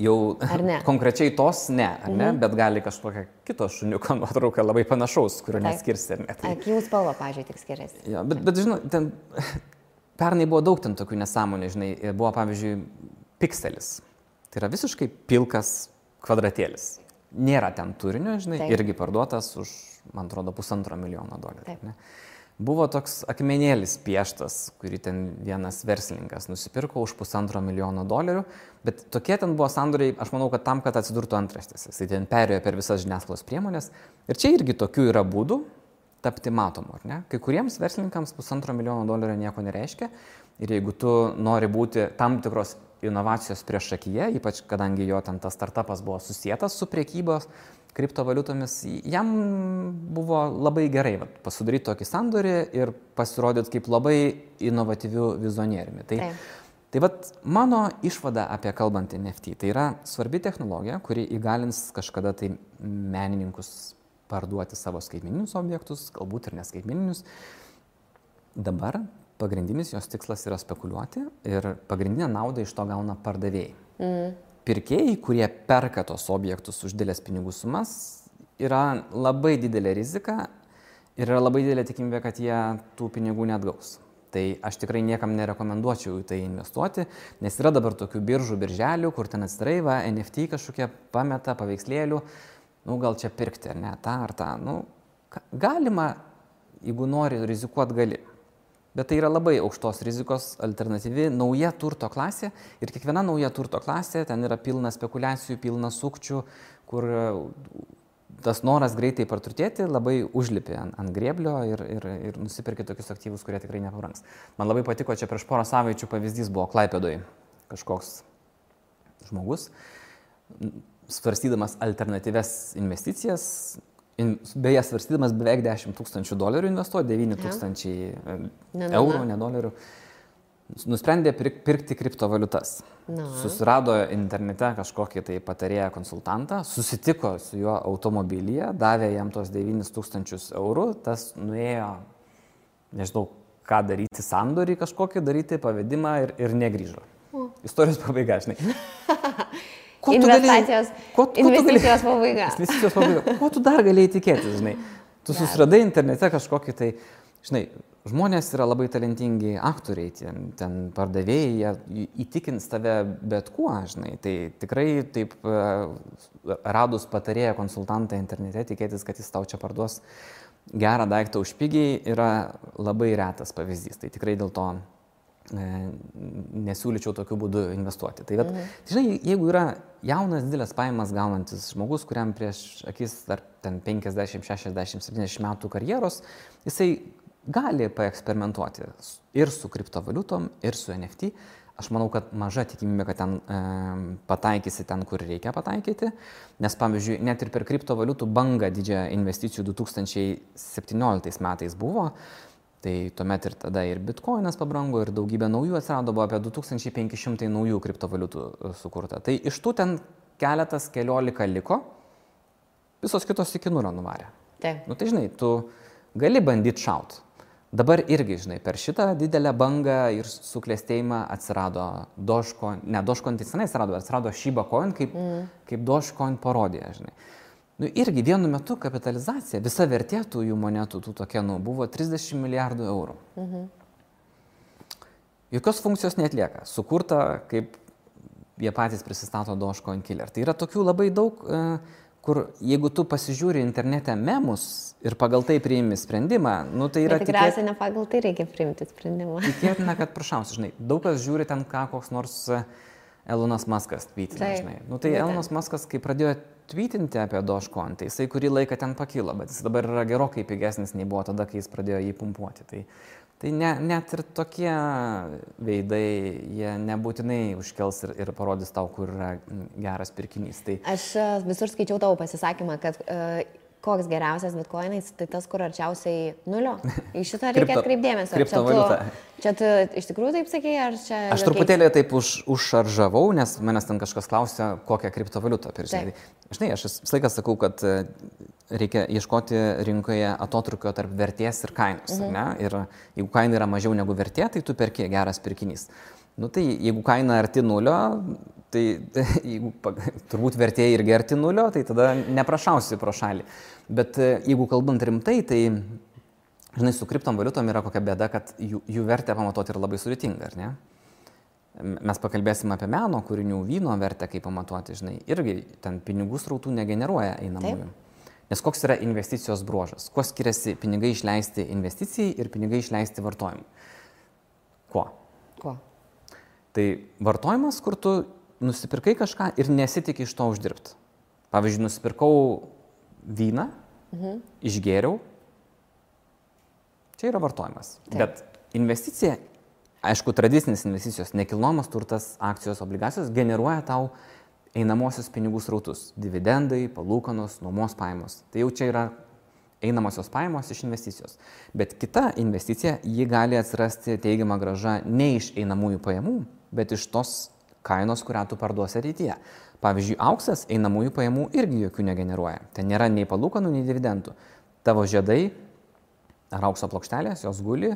Jau konkrečiai tos ne, ne, bet gali kažkokia kito šuniuko nuotrauka labai panašaus, kurio neskirsi. Akių spalva, pavyzdžiui, tik skiriasi. Ja, bet žinai, ten... Pernai buvo daug ten tokių nesąmonių, žinai, buvo pavyzdžiui pikselis. Tai yra visiškai pilkas kvadratėlis. Nėra ten turinio, žinai, irgi parduotas už, man atrodo, $1,5 milijono. Ne? Buvo toks akmenėlis pieštas, kurį ten vienas verslininkas nusipirko už $1,5 milijono, bet tokie ten buvo sandoriai, aš manau, kad tam, kad atsidurtų antraštėse. Jis ten perėjo per visas žiniasklaidos priemonės. Ir čia irgi tokių yra būdų tapti matomu, ar ne? Kai kuriems verslininkams $1,5 milijono nieko nereiškia ir jeigu tu nori būti tam tikros inovacijos priešakyje, ypač kadangi jo ten tas startupas buvo susietas su priekybos kriptovaliutomis, jam buvo labai gerai pasidaryti tokį sandorį ir pasirodyti kaip labai inovatyvių vizionieriumi. Tai mano išvada apie kalbantį NFT, tai yra svarbi technologija, kuri įgalins kažkada tai menininkus parduoti savo skaitmeninius objektus, galbūt ir neskaitmeninius. Dabar pagrindinis jos tikslas yra spekuliuoti ir pagrindinę naudą iš to gauna pardavėjai. Pirkėjai, kurie perka tos objektus už didelės pinigų sumas, yra labai didelė rizika ir yra labai didelė tikimybė, kad jie tų pinigų neatgaus. Tai aš tikrai niekam nerekomenduočiau į tai investuoti, nes yra dabar tokių birželių, kur ten atsidarai, NFT kažkokie pameta paveikslėlių, gal čia pirkti, ar ne, tą ar tą. Galima, jeigu nori rizikuoti, gali. Bet tai yra labai aukštos rizikos alternatyvi nauja turto klasė ir kiekviena nauja turto klasė, ten yra pilna spekulacijų, pilna sukčių, kur tas noras greitai praturtėti labai užlipi ant grėblio ir nusipirki tokius aktyvus, kurie tikrai nepabrangs. Man labai patiko, čia prieš porą savaičių pavyzdys buvo Klaipėdoje kažkoks žmogus, svarstydamas alternatyves investicijas, beje, svarstydamas beveik $10,000 investuoti, 9,000 eurų, ne dolerių, nusprendė pirkti kriptovaliutas. Susirado internete kažkokį tai patarėją konsultantą, susitiko su juo automobilyje, davė jam tos 9,000 eurų, tas nuėjo, nežinau, ką daryti, sandorį kažkokį daryti, pavedimą ir negrįžo. Istorijos pabaiga, žinai. Investicijos pabaiga. Investicijos pabaiga. Ko tu dar galėjai tikėtis, žinai? Tu susiradai internete kažkokį tai, žinai, žmonės yra labai talentingi aktoriai, ten pardavėjai, jie įtikins tave bet kuo, žinai. Tai tikrai taip radus patarėją konsultantą internete, tikėtis, kad jis tau čia parduos gerą daiktą už pigiai, yra labai retas pavyzdys. Tai tikrai dėl to nesiūlyčiau tokiu būdu investuoti. Tai žinai, jeigu yra jaunas, didelės pajamas gaunantis žmogus, kuriam prieš akis dar ten 50, 60, 70 metų karjeros, jisai gali paeksperimentuoti ir su kriptovaliutom, ir su NFT. Aš manau, kad maža tikimybė, kad ten pataikysi ten, kur reikia pataikyti, nes, pavyzdžiui, net ir per kriptovaliutų bangą didžiąją investicijų 2017 metais buvo, tai tuomet ir tada ir bitkoinas pabrango, ir daugybė naujų atsirado, buvo apie 2500 naujų kriptovaliutų sukurta. Tai iš tų ten keliolika liko, visos kitos iki nulio nuvarė. Taip. Tai žinai, tu gali bandyti šaut. Dabar irgi, žinai, per šitą didelę bangą ir suklestėjimą atsirado Dogecoin, ne Dogecoin tai senai atsirado Shiba Coin kaip Dogecoin parodija, žinai. Irgi vienu metu kapitalizacija, visa vertė tų jų monetų, tų tokenų, buvo 30 milijardų eurų. Jokios funkcijos neatlieka. Sukurta, kaip jie patys prisistato Dogecoin killer. Tai yra tokių labai daug, kur jeigu tu pasižiūri internete memus ir pagal tai priimi sprendimą, tai yra tikriausiai ne pagal tai reikia priimti sprendimą. Tikėtina, kad prašausi, žinai, daug kas žiūri ten koks nors Elonas Muskas tweetina, žinai. Tai Elonas Muskas, kai pradėjo tweetinti apie Dogecoin, tai jisai kurį laiką ten pakilo, bet jis dabar yra gerokai pigesnis nei buvo tada, kai jis pradėjo jį pumpuoti. Tai net ir tokie veidai, jie nebūtinai užkels ir parodys tau, kur yra geras pirkinys. Aš visur skaičiau tavo pasisakymą, kad koks geriausias bitkoinais, tai tas, kur arčiausiai nulio. Į šitą reikia atkreipdėmėsio. Kriptovaliuta. Čia tu iš tikrųjų taip sakėjai, ar čia... Aš truputėlį taip užšaržavau, nes manęs ten kažkas klausė, kokią kriptovaliutą pirkti. Žinai, aš visą laiką sakau, kad reikia ieškoti rinkoje atotrukio tarp vertės ir kainos. Ne? Ir jeigu kaina yra mažiau negu vertė, tai tu perki geras pirkinys. Tai jeigu kaina arti nulio, tai jeigu turbūt vertė irgi arti nulio, tai tada neprašausi pro šalį. Bet jeigu kalbant rimtai, tai, žinai, su kriptovaliutom yra kokia bėda, kad jų vertę pamatuoti yra labai sudėtinga, ar ne? Mes pakalbėsim apie meno kūrinių, vyno vertę, kaip pamatuoti, žinai, irgi ten pinigų srautų negeneruoja einamųjų. Nes koks yra investicijos bruožas? Kuo skiriasi pinigai išleisti investicijai ir pinigai išleisti vartojimui? Kuo? Tai vartojimas, kur tu nusipirkai kažką ir nesitikė iš to uždirbti. Pavyzdžiui, nusipirkau vyną, išgėriau, čia yra vartojimas. Bet investicija, aišku, tradicinės investicijos, nekilnojamas turtas, akcijos, obligacijos generuoja tau einamosios pinigų srautus. Dividendai, palūkanos, nuomos pajamos. Tai jau čia yra einamosios pajamos iš investicijos. Bet kita investicija, ji gali atsirasti teigiama grąža ne iš einamųjų pajamų, bet iš tos kainos, kurią tu parduosi ateityje. Pavyzdžiui, auksas einamųjų pajamų irgi jokių negeneruoja. Ten nėra nei palūkanų, nei dividendų. Tavo žiedai ar aukso plokštelės, jos guli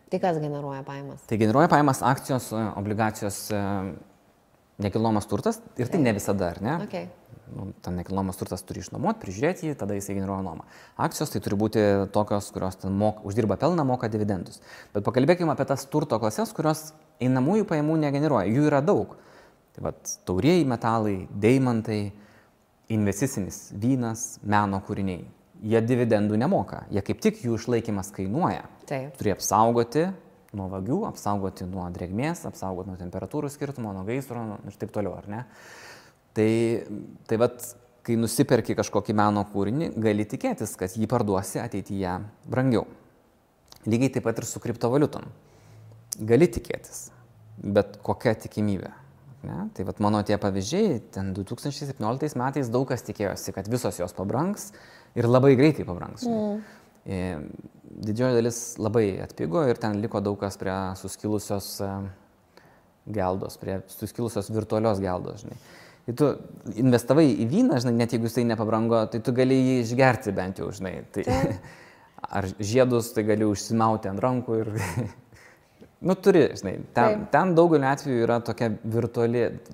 Tai kas generuoja pajamas? Tai generuoja pajamas akcijos, obligacijos, nekilnojamas turtas ir tai ne visada, ar ne? Okay. Ten nekilnojamas turtas turi išnuomoti, prižiūrėti jį, tada jisai generuoja nuomą. Akcijos tai turi būti tokios, kurios ten uždirba pelną, moka dividendus. Bet pakalbėkime apie tas turto klases, kurios einamųjų pajamų negeneruoja. Jų yra daug. Tai vat, taurieji metalai, deimantai, investicinis vynas, meno kūriniai. Jie dividendų nemoka. Jie kaip tik jų išlaikymas kainuoja. Taip. Turi apsaugoti nuo vagių, apsaugoti nuo drėgmės, apsaugoti nuo temperatūrų skirtumo, nuo gaisro ir taip toliau, ar ne? Tai vat, kai nusiperki kažkokį meno kūrinį, gali tikėtis, kad jį parduosi ateityje brangiau. Lygiai taip pat ir su kriptovaliutom. Gali tikėtis, bet kokia tikimybė. Ne? Tai vat mano tie pavyzdžiai, ten 2017 metais daug kas tikėjosi, kad visos jos pabrangs ir labai greitai pabrangs. Didžioji dalis labai atpigo ir ten liko daug kas prie suskilusios geldos, prie suskilusios virtualios geldos, žinai. Tai tu investavai į vyną, žinai, net jeigu jisai nepabrango, tai tu gali jį išgerti bent jau, žinai. Tai, ar žiedus, tai gali užsimauti ant rankų ir... Nu, turi, žinai, ten daugeliu atveju yra tokia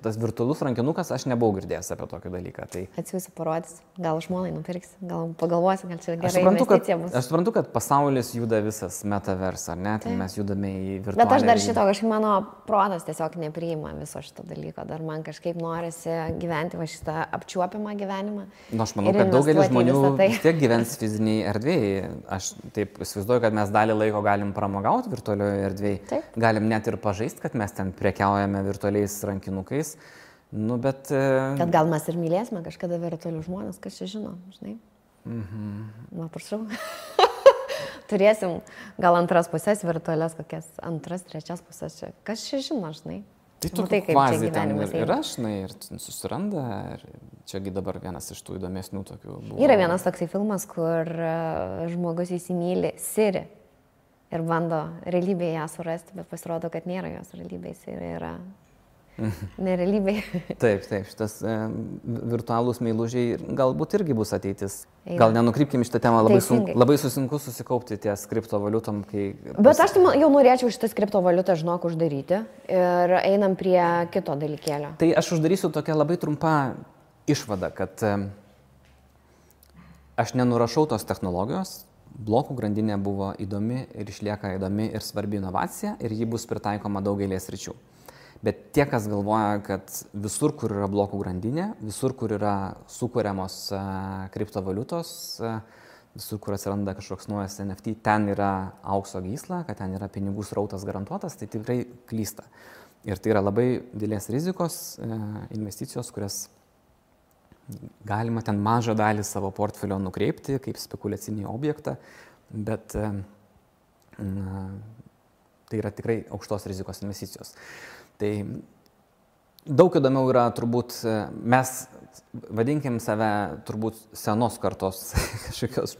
tas virtualus rankinukas, aš nebuvau girdėjęs apie tokį dalyką. Tai... Atsiųsiu parodys, gal žmonai nupirksi, gal pagalvosi, gal čia gerai investicija bus. Aš suprantu, kad pasaulis juda visas metavers, ar ne, tai mes judame į virtualią. Bet aš dar šito kažkaip mano protas tiesiog nepriima viso šito dalyko, dar man kažkaip norisi gyventi va šitą apčiuopiamą gyvenimą. Nu, aš manau, kad daugelis žmonių vis tiek gyvens fiziniai erdvėjai. Aš taip įsivaizduoju, kad mes dalį laiko galim pramogauti virtualioje erdvėje. Galim net ir pažaisti, kad mes ten prekiaujame virtualiais rankinukais, nu, bet... Kad gal mes ir mylėsime kažkada virtualių žmonės, kas čia žino, žinai? Na, prašau. Turėsim gal antras pusės virtualias, kokias antras, trečias pusės čia. Kas čia žino, žinai? Tai tu kvaziai ten ir aš, žinai, ir susiranda, ir čiagi dabar vienas iš tų įdomesnių tokių buvo. Yra vienas toksai filmas, kur žmogus įsimyli Siri. Ir bando realybėje ją surasti, bet pasirodo, kad nėra jos realybės ir yra nerealybėje. Taip, šitas virtualūs meilužiai galbūt irgi bus ateitis. Gal nenukrypkim šitą temą, labai susinku susikaupti ties kriptovaliutom, kai... Bet aš jau norėčiau šitas kriptovaliutą, žinok, uždaryti ir einam prie kito dalykėlio. Tai aš uždarysiu tokią labai trumpą išvadą, kad aš nenurašau tos technologijos. Blokų grandinė buvo įdomi ir išlieka įdomi ir svarbi inovacija ir ji bus pritaikoma daugelės sričių. Bet tie, kas galvoja, kad visur, kur yra blokų grandinė, visur, kur yra sukuriamos kriptovaliutos, visur, kur atsiranda kažkoks naujas NFT, ten yra aukso gysla, kad ten yra pinigų srautas garantuotas, tai tikrai klysta. Ir tai yra labai didelės rizikos investicijos, kurias galima ten mažą dalį savo portfelio nukreipti kaip spekuliacinį objektą, bet tai yra tikrai aukštos rizikos investicijos. Tai daug įdomiau yra turbūt, mes vadinkim save turbūt senos kartos kažkokios.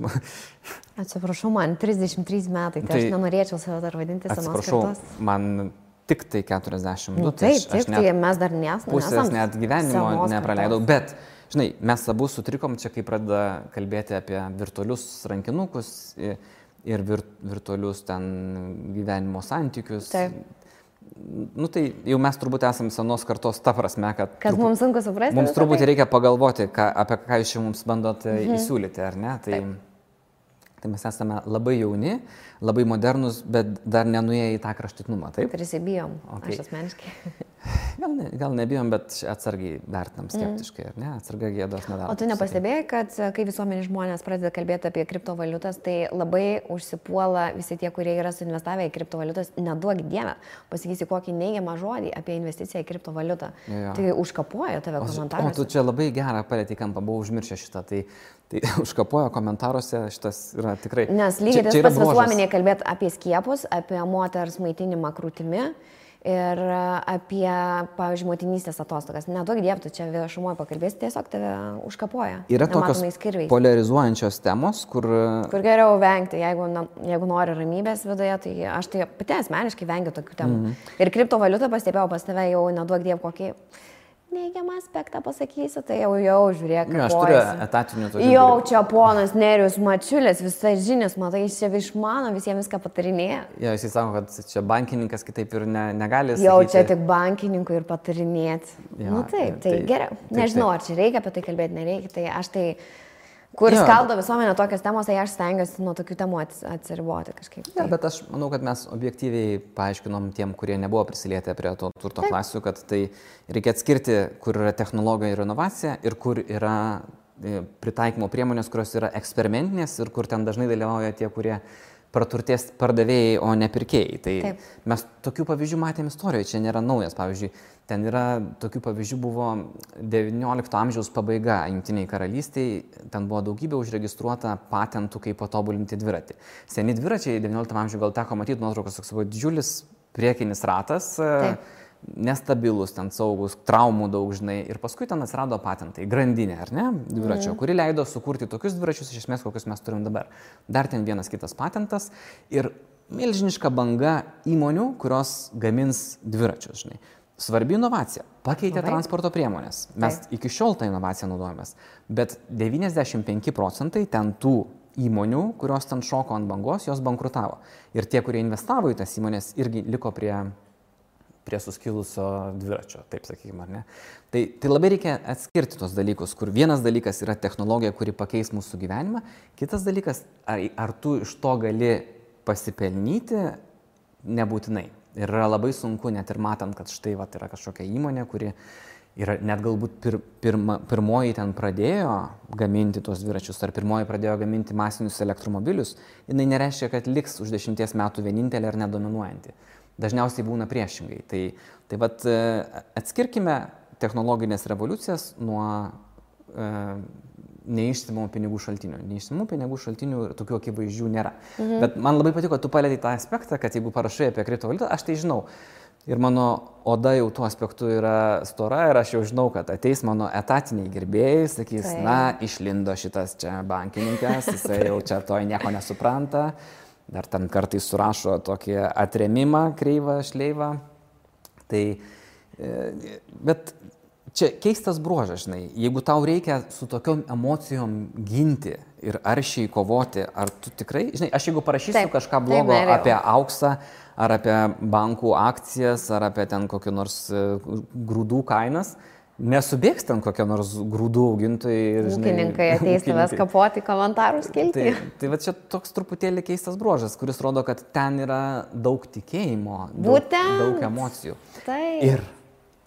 Atsiprašau, man 33 metai, tai aš nenorėčiau save dar vadinti senos kartos. Atsiprašau, man tik tai 42. Nu, taip, tai mes dar nesam. Pusės net gyvenimo nepraleidau, bet žinai, mes abu sutrikom čia, kai pradeda kalbėti apie virtualius rankinukus ir virtualius ten gyvenimo santykius. Taip. Nu tai jau mes turbūt esame senos kartos ta prasme, kad mums sunku suprasti. Mums truputį reikia pagalvoti, apie ką jūs čia mums bandot įsiūlyti, ar ne? Tai mes esame labai jauni, labai modernus, bet dar nenuėję į tą kraštutinumą, taip? Prisibijom, aš asmeniškai. Gal nebijom, bet atsargiai vertinam skeptiškai, ar ne? Atsargiai gėdos nedaro. O tu nepastebėjai, kad kai visuomenės žmonės pradeda kalbėti apie kriptovaliutas, tai labai užsipuola visi tie, kurie yra suinvestavę į kriptovaliutas, neduok dievę, pasakysi kokį neigiamą žodį apie investiciją į kriptovaliutą. Tai užkapoja tave komentaruose. O tu čia labai gerą palėtį kampą, buvau užmiršę šitą, tai užkapoja komentaruose, šitas yra tikrai... Nes lygiai tas pats visuomenėje kalbėti apie skiepus, apie moters maitinimą krūtimi. Ir apie, pavyzdžiui, motinystės atostogas. Neduok dievų, tu čia viešumoje pakalbėsi, tiesiog tave užkapoja. Yra tokios polarizuojančios temos, kur geriau vengti, jeigu nori ramybės viduje, tai aš tai pati asmeniškai vengiu tokių temų. Ir kriptovaliutą pastebėjau pas tave jau, neduok dievų, kokį neigiamą aspektą pasakysiu, tai jau žiūrėk. Aš turiu etatinių tokių. Jau čia ponas Nerijus Mačiulis, visai žinias, matai, jis čia išmano, visiems viską patarinėja. Jo, jisai sako, kad čia bankininkas kitaip ir negali. Jau sakyti. čia tik bankininkui ir patarinėti. Jo, Taip, tai geriau. Taip, Nežinau, ar čia reikia apie tai kalbėti, nereikia. Tai aš tai... Kur skaldo visuomenė tokios temos, tai aš stengiuosi nuo tokių temų atsiriboti kažkaip. Ja, bet aš manau, kad mes objektyviai paaiškinom tiem, kurie nebuvo prisilietę prie to turto klasių, kad tai reikia atskirti, kur yra technologija ir inovacija ir kur yra pritaikymo priemonės, kurios yra eksperimentinės ir kur ten dažnai dalyvauja tie, kurie praturtės pardavėjai, o ne pirkėjai. Tai mes tokių pavyzdžių matėm istorijoje, čia nėra naujas. Pavyzdžiui, ten yra tokių pavyzdžių buvo 19 amžiaus pabaiga Jungtinėje karalystėje, ten buvo daugybė užregistruota patentų, kaip patobulinti dviratį. Seni dviračiai 19 amžiuje gal teko matyti nuotraukos, toks buvo didžiulis priekinis ratas, nestabilus, ten saugus, traumų daug žinai. Ir paskui ten atsirado patentai, grandinė, ar ne, dviračio, kuri leido sukurti tokius dviračius, iš esmės, kokius mes turim dabar. Dar ten vienas kitas patentas ir milžiniška banga įmonių, kurios gamins dviračius, žinai. Svarbi inovacija. Pakeitė transporto priemonės. Mes iki šiol tą inovaciją naudojamės. Bet 95% ten tų įmonių, kurios ten šoko ant bangos, jos bankrutavo. Ir tie, kurie investavo į tas įmonės, irgi liko prie suskilusio dviračio, taip sakykime, ar ne. Tai labai reikia atskirti tos dalykus, kur vienas dalykas yra technologija, kuri pakeis mūsų gyvenimą, kitas dalykas, ar tu iš to gali pasipelnyti, nebūtinai. Ir yra labai sunku, net ir matant, kad štai yra kažkokia įmonė, kuri yra net galbūt pirmoji ten pradėjo gaminti tuos dviračius, ar pirmoji pradėjo gaminti masinius elektromobilius, jinai nereiškia, kad liks už 10 metų vienintelė ar nedominuojanti. Dažniausiai būna priešingai. Tai vat atskirkime technologinės revoliucijas nuo neišsimamų pinigų šaltinių. Neišsimamų pinigų šaltinių tokių akivaizdžių nėra. Bet man labai patiko, kad tu palėtei tą aspektą, kad jeigu parašai apie kriptovaliutą, aš tai žinau. Ir mano oda jau tuo aspektu yra stora ir aš jau žinau, kad ateis mano etatiniai gerbėjai, sakys, išlindo šitas čia bankininkas, jisai jau čia to nieko nesupranta. Dar ten kartais surašo tokį atremimą, kreivą, šleivą. Bet čia keistas bruožas, žinai, jeigu tau reikia su tokiom emocijom ginti ir aršiai kovoti, ar tu tikrai, žinai, aš jeigu parašysiu kažką blogo apie auksą, ar apie bankų akcijas, ar apie ten kokį nors grūdų kainas, nesubėgs ten kokie nors grūdų augintojai. Ūkininkai ateis tavęs kapoti komentarų skilti. Tai va čia toks truputėlį keistas bruožas, kuris rodo, kad ten yra daug tikėjimo, daug emocijų. Ir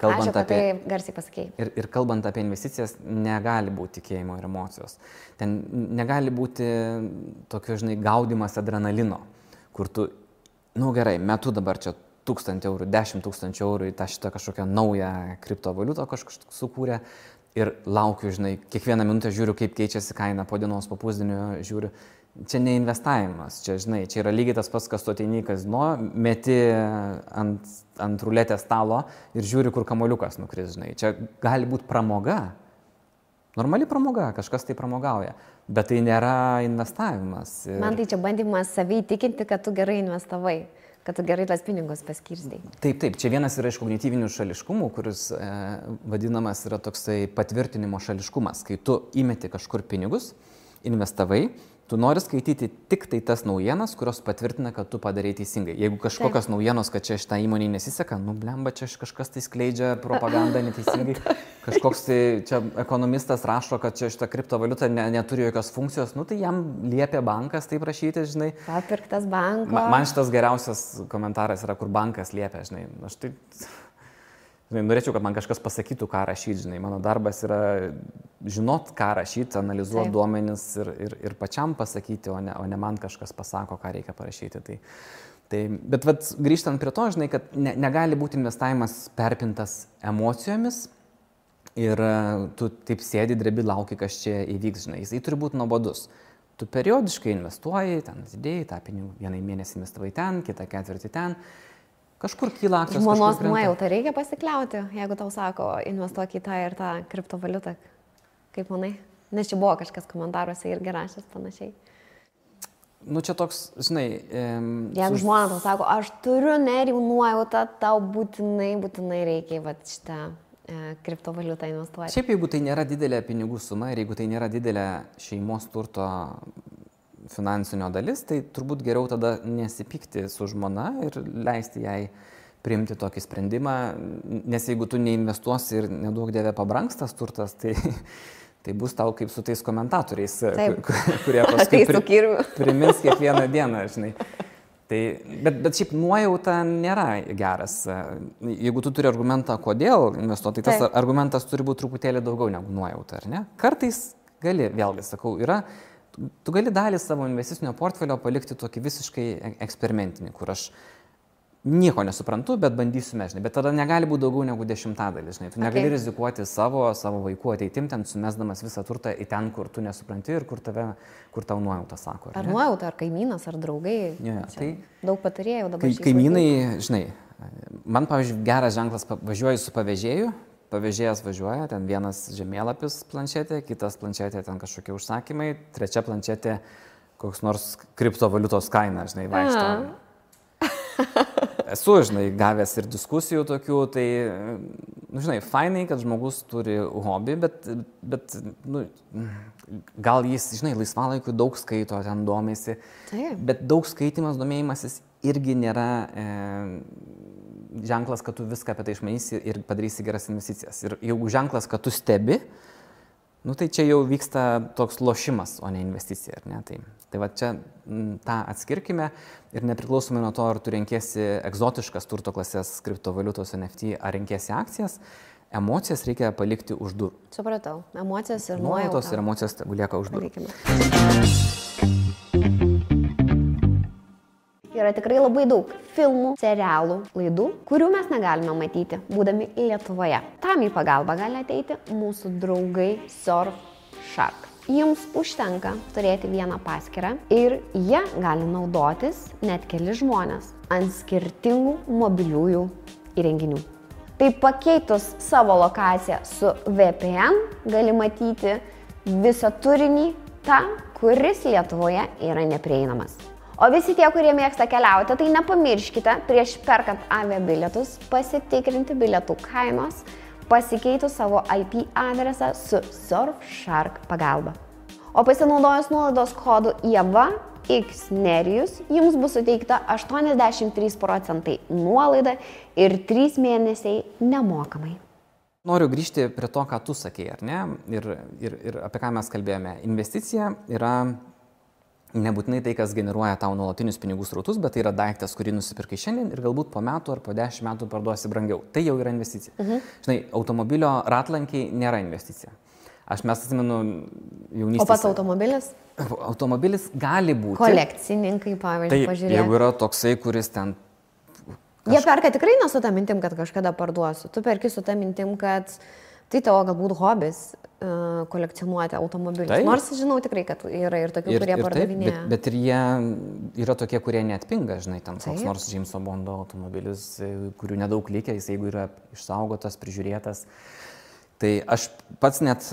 kalbant apie... garsiai pasakėjai. Ir kalbant apie investicijas, negali būti tikėjimo ir emocijos. Ten negali būti tokio, žinai, gaudimas adrenalino, kur tu, gerai, metu dabar čia 1000 eurų, 10 000 eurų į tą šitą kažkokią naują kriptovaliutą kažkas sukūrė ir laukiu, žinai, kiekvieną minutę žiūriu, kaip keičiasi kaina, po dienos, po pusdienio žiūriu. Čia ne investavimas, čia, žinai, čia yra lygiai tas pats, kas tu ateini į kazino, meti ant ruletės stalo ir žiūri, kur kamuoliukas nukris, žinai. Čia gali būti pramoga, normali pramoga, kažkas tai pramogauja, bet tai nėra investavimas. Man tai čia bandymas savai įtikinti, kad tu gerai investavai. Kad tu gerai tas pinigus paskirstai. Taip, čia vienas yra iš kognityvinių šališkumų, kuris vadinamas yra toksai patvirtinimo šališkumas. Kai tu įmeti kažkur pinigus, investavai, tu nori skaityti tik tai tas naujienas, kurios patvirtina, kad tu padarei teisingai. Jeigu kažkokios naujienos, kad čia šitą įmonį nesiseka, blemba, čia kažkas tai skleidžia propagandą neteisingai, kažkoks tai čia ekonomistas rašo, kad čia šitą kriptovaliutą neturi jokios funkcijos, tai jam liepia bankas taip rašyti, žinai. Papirktas banko. Man šitas geriausias komentaras yra, kur bankas liepia, žinai. Aš tai... Norėčiau, kad man kažkas pasakytų, ką rašyti, žinai. Mano darbas yra žinot, ką rašyti, analizuoti duomenis ir pačiam pasakyti, o ne man kažkas pasako, ką reikia parašyti. Bet grįžtant prie to, žinai, kad negali būti investavimas perpintas emocijomis ir tu taip sėdi, drebi, lauki, kas čia įvyks, žinai. Jisai turi būti nuobodus. Tu periodiškai investuoji, ten atidėjai, tą pinigų vieną mėnesį investavai ten, kitą ketvirtį ten. Kažkur kyla akcijos. Žmonos nuojauta reikia pasikliauti, jeigu tau sako, investuok į tą ir tą kriptovaliutą. Kaip manai? Nes čia buvo kažkas komentaruose irgi rašęs panašiai. Čia toks, žinai... Jeigu žmona tau sako, aš turiu Nerijų nuojautą, tau būtinai reikia šitą kriptovaliutą investuoti. Šiaip jeigu tai nėra didelė pinigų suma ir jeigu tai nėra didelė šeimos turto finansinio dalis, tai turbūt geriau tada nesipykti su žmona ir leisti jai priimti tokį sprendimą, nes jeigu tu neinvestuosi ir neduok dieve pabrangs tas turtas, tai bus tau kaip su tais komentatoriais, kurie paskui primins kiekvieną dieną, žinai. Tai, bet šiaip nuojauta nėra geras. Jeigu tu turi argumentą, kodėl investuoti, tai tas argumentas turi būti truputėlį daugiau negu nuojauta, ar ne? Kartais gali, vėlgi sakau, tu gali dalį savo investicinio portfelio palikti tokį visiškai eksperimentinį, kur aš nieko nesuprantu, bet bandysiu žinai. Bet tada negali būti daugiau negu 10%, žinai. Tu negali rizikuoti savo vaikų ateitim, ten sumesdamas visą turtą į ten, kur tu nesupranti ir kur tau nuojauta sako. Ar nuojauta, ar kaimynas, ar draugai. Tai daug patarėjau dabar. Kaimynai, žinai, man, pavyzdžiui, geras ženklas, važiuoju su pavėžėju, pavėžėjas važiuoja, ten vienas žemėlapis planšetė, kitas planšetė, ten kažkokie užsakymai, trečia planšetė koks nors kriptovaliutos kaina, žinai, vaikšto. Esu, žinai, gavęs ir diskusijų tokių, tai, žinai, fainai, kad žmogus turi hobį, bet gal jis, žinai, laisvalaikiu daug skaito, ten domėsi, bet daug skaitimas, domėjimasis irgi nėra ženklas, kad tu viską apie tai išmanysi ir padarysi geras investicijas. Ir jeigu ženklas, kad tu stebi, tai čia jau vyksta toks lošimas, o ne investicija, ar ne? Tai va čia tą atskirkime ir nepriklausomai nuo to, ar tu renkiesi egzotiškas turto klasės kriptovaliutos NFT, ar renkiesi akcijas, emocijas reikia palikti už durų. Supratau, emocijas ir nuojauta. Ir emocijos lieka už durų. Yra tikrai labai daug filmų, serialų, laidų, kurių mes negalime matyti, būdami Lietuvoje. Tam į pagalbą gali ateiti mūsų draugai Surfshark. Jums užtenka turėti vieną paskyrą ir jie gali naudotis net keli žmonės ant skirtingų mobiliųjų įrenginių. Tai pakeitus savo lokaciją su VPN gali matyti visą turinį tą, kuris Lietuvoje yra neprieinamas. O visi tie, kurie mėgsta keliauti, tai nepamirškite prieš perkant aviabilietus pasitikrinti bilietų kainos, pasikeitus savo IP adresą su Surfshark pagalba. O pasinaudojus nuolaidos kodu IEVA-X-NERIJUS jums bus suteikta 83% nuolaida ir 3 mėnesiai nemokamai. Noriu grįžti prie to, ką tu sakei, ar ne? Ir apie ką mes kalbėjome. Investicija yra nebūtinai tai, kas generuoja tau nuolatinius pinigų srautus, bet tai yra daiktas, kurį nusipirkai šiandien ir galbūt po metų ar po 10 metų parduosi brangiau. Tai jau yra investicija. Žinai, automobilio ratlankiai nėra investicija. Mes atsimenu jaunystės. O pats automobilis? Automobilis gali būti. Kolekcininkai, pavyzdžiui, pažiūrėti. Jeigu yra toksai, kuris ten... Jie perka tikrai ne su tą mintim, kad kažkada parduosiu. Tu perki su tą mintim, kad tai tavo galbūt hobis kolekcionuoti automobilius. Taip. Nors žinau tikrai, kad yra ir tokių, kurie pardavinėja. Bet ir jie yra tokie, kurie neatpinga, žinai, ten koks nors Jameso Bondo automobilis, kurių nedaug likę, jis jeigu yra išsaugotas, prižiūrėtas. Tai aš pats net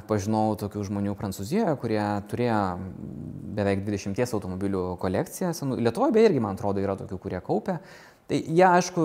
pažinau tokių žmonių Prancūzijoje, kurie turėjo beveik 20 automobilių kolekciją. Lietuvoje beje irgi, man atrodo, yra tokių, kurie kaupia. Tai jie, aišku,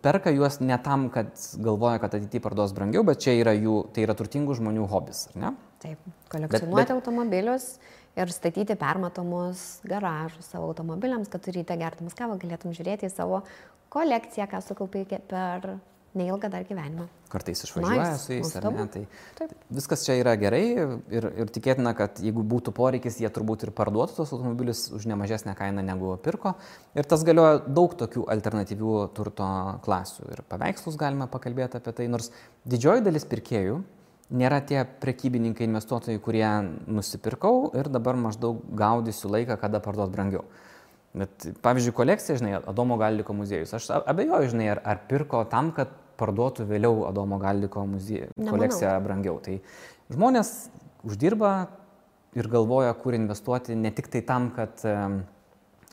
perka juos ne tam, kad galvoja, kad ateityje parduos brangiau, bet čia yra tai yra turtingų žmonių hobis, ar ne? Taip, kolekcionuoti automobilius ir statyti permatomus garažus savo automobiliams, kad ryte gerdamas kavą galėtum žiūrėti į savo kolekciją, ką sukaupai per neilgą dar gyvenimą. Kartais išvažiuoja su jais, ar ne? Tai viskas čia yra gerai ir tikėtina, kad jeigu būtų poreikis, jie turbūt ir parduotų tos automobilius už nemažesnę kainą negu pirko. Ir tas galioja daug tokių alternatyvių turto klasių. Ir paveikslus galime pakalbėti apie tai, nors didžioji dalis pirkėjų nėra tie prekybininkai, investuotojai, kurie nusipirkau ir dabar maždaug gaudysiu laiką, kada parduot brangiau. Bet, pavyzdžiui, kolekcija, žinai, Adomo Galdiko muziejus. Aš abejoju, žinai, ar pirko tam, kad parduotų vėliau Adomo Galdiko kolekciją brangiau. Tai žmonės uždirba ir galvoja, kur investuoti ne tik tai tam, kad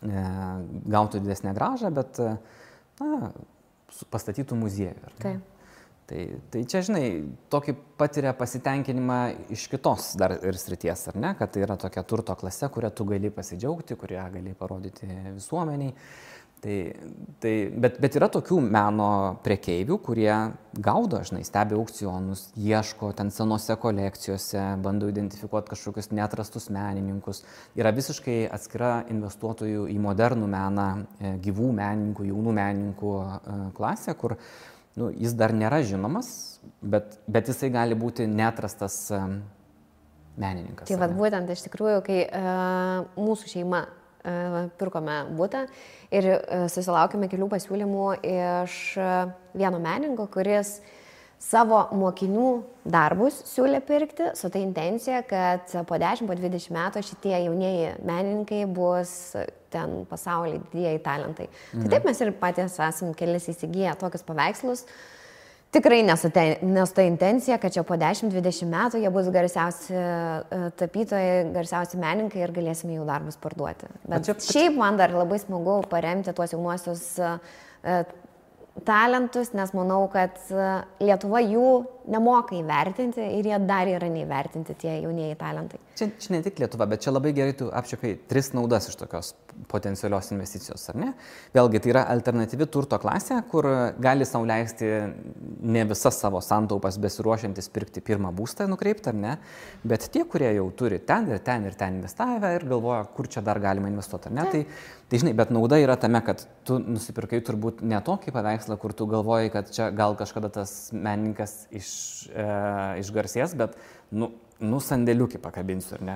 gautų didesnę grąžą, bet pastatytų muziejų. Tai čia, žinai, tokį patiria pasitenkinimą iš kitos dar ir srities, ar ne? Kad tai yra tokia turto klase, kurią tu gali pasidžiaugti, kurią gali parodyti visuomeniai. Bet yra tokių meno prekeivių, kurie gaudo, žinai, stebi aukcionus, ieško ten senose kolekcijose, bando identifikuoti kažkokius neatrastus menininkus. Yra visiškai atskira investuotojų į modernų meną, gyvų menininkų, jaunų menininkų klasė, kur jis dar nėra žinomas, bet jisai gali būti neatrastas menininkas. Tai vad būtent iš tikrųjų, kai mūsų šeima pirkome butą ir susilaukėme kelių pasiūlymų iš vieno menininko, kuris savo mokinių darbus siūlė pirkti su ta intencija, kad po 10-20 metų šitie jaunieji menininkai bus ten pasaulyje didieji talentai. Tai taip mes ir patys esam kelis įsigiję tokius paveikslus. Tikrai nesu ta intencija, kad čia po 10-20 metų jie bus garsiausi tapytojai, garsiausi menininkai ir galėsime jų darbus parduoti. Bet šiaip man dar labai smagu paremti tuos jaunuosius talentus, nes manau, kad Lietuva jų nemoka įvertinti ir jie dar yra neįvertinti tie jaunieji talentai. Čia ne tik Lietuva, bet čia labai gerai tu apčiuopai 3 naudas iš tokios potencialios investicijos, ar ne? Vėlgi, tai yra alternatyvi turto klasė, kur gali sau leisti ne visas savo santaupas besiruošiantis pirkti pirmą būstą nukreipti, ar ne? Bet tie, kurie jau turi ten ir ten investavę ir galvoja, kur čia dar galima investuoti, ar ne? Tai žinai, bet nauda yra tame, kad tu nusipirkai turbūt ne tokį paveikslą, kur tu galvoji, kad čia gal kažkada tas menininkas išgarsės, bet sandėliukį pakabinsiu, ar ne?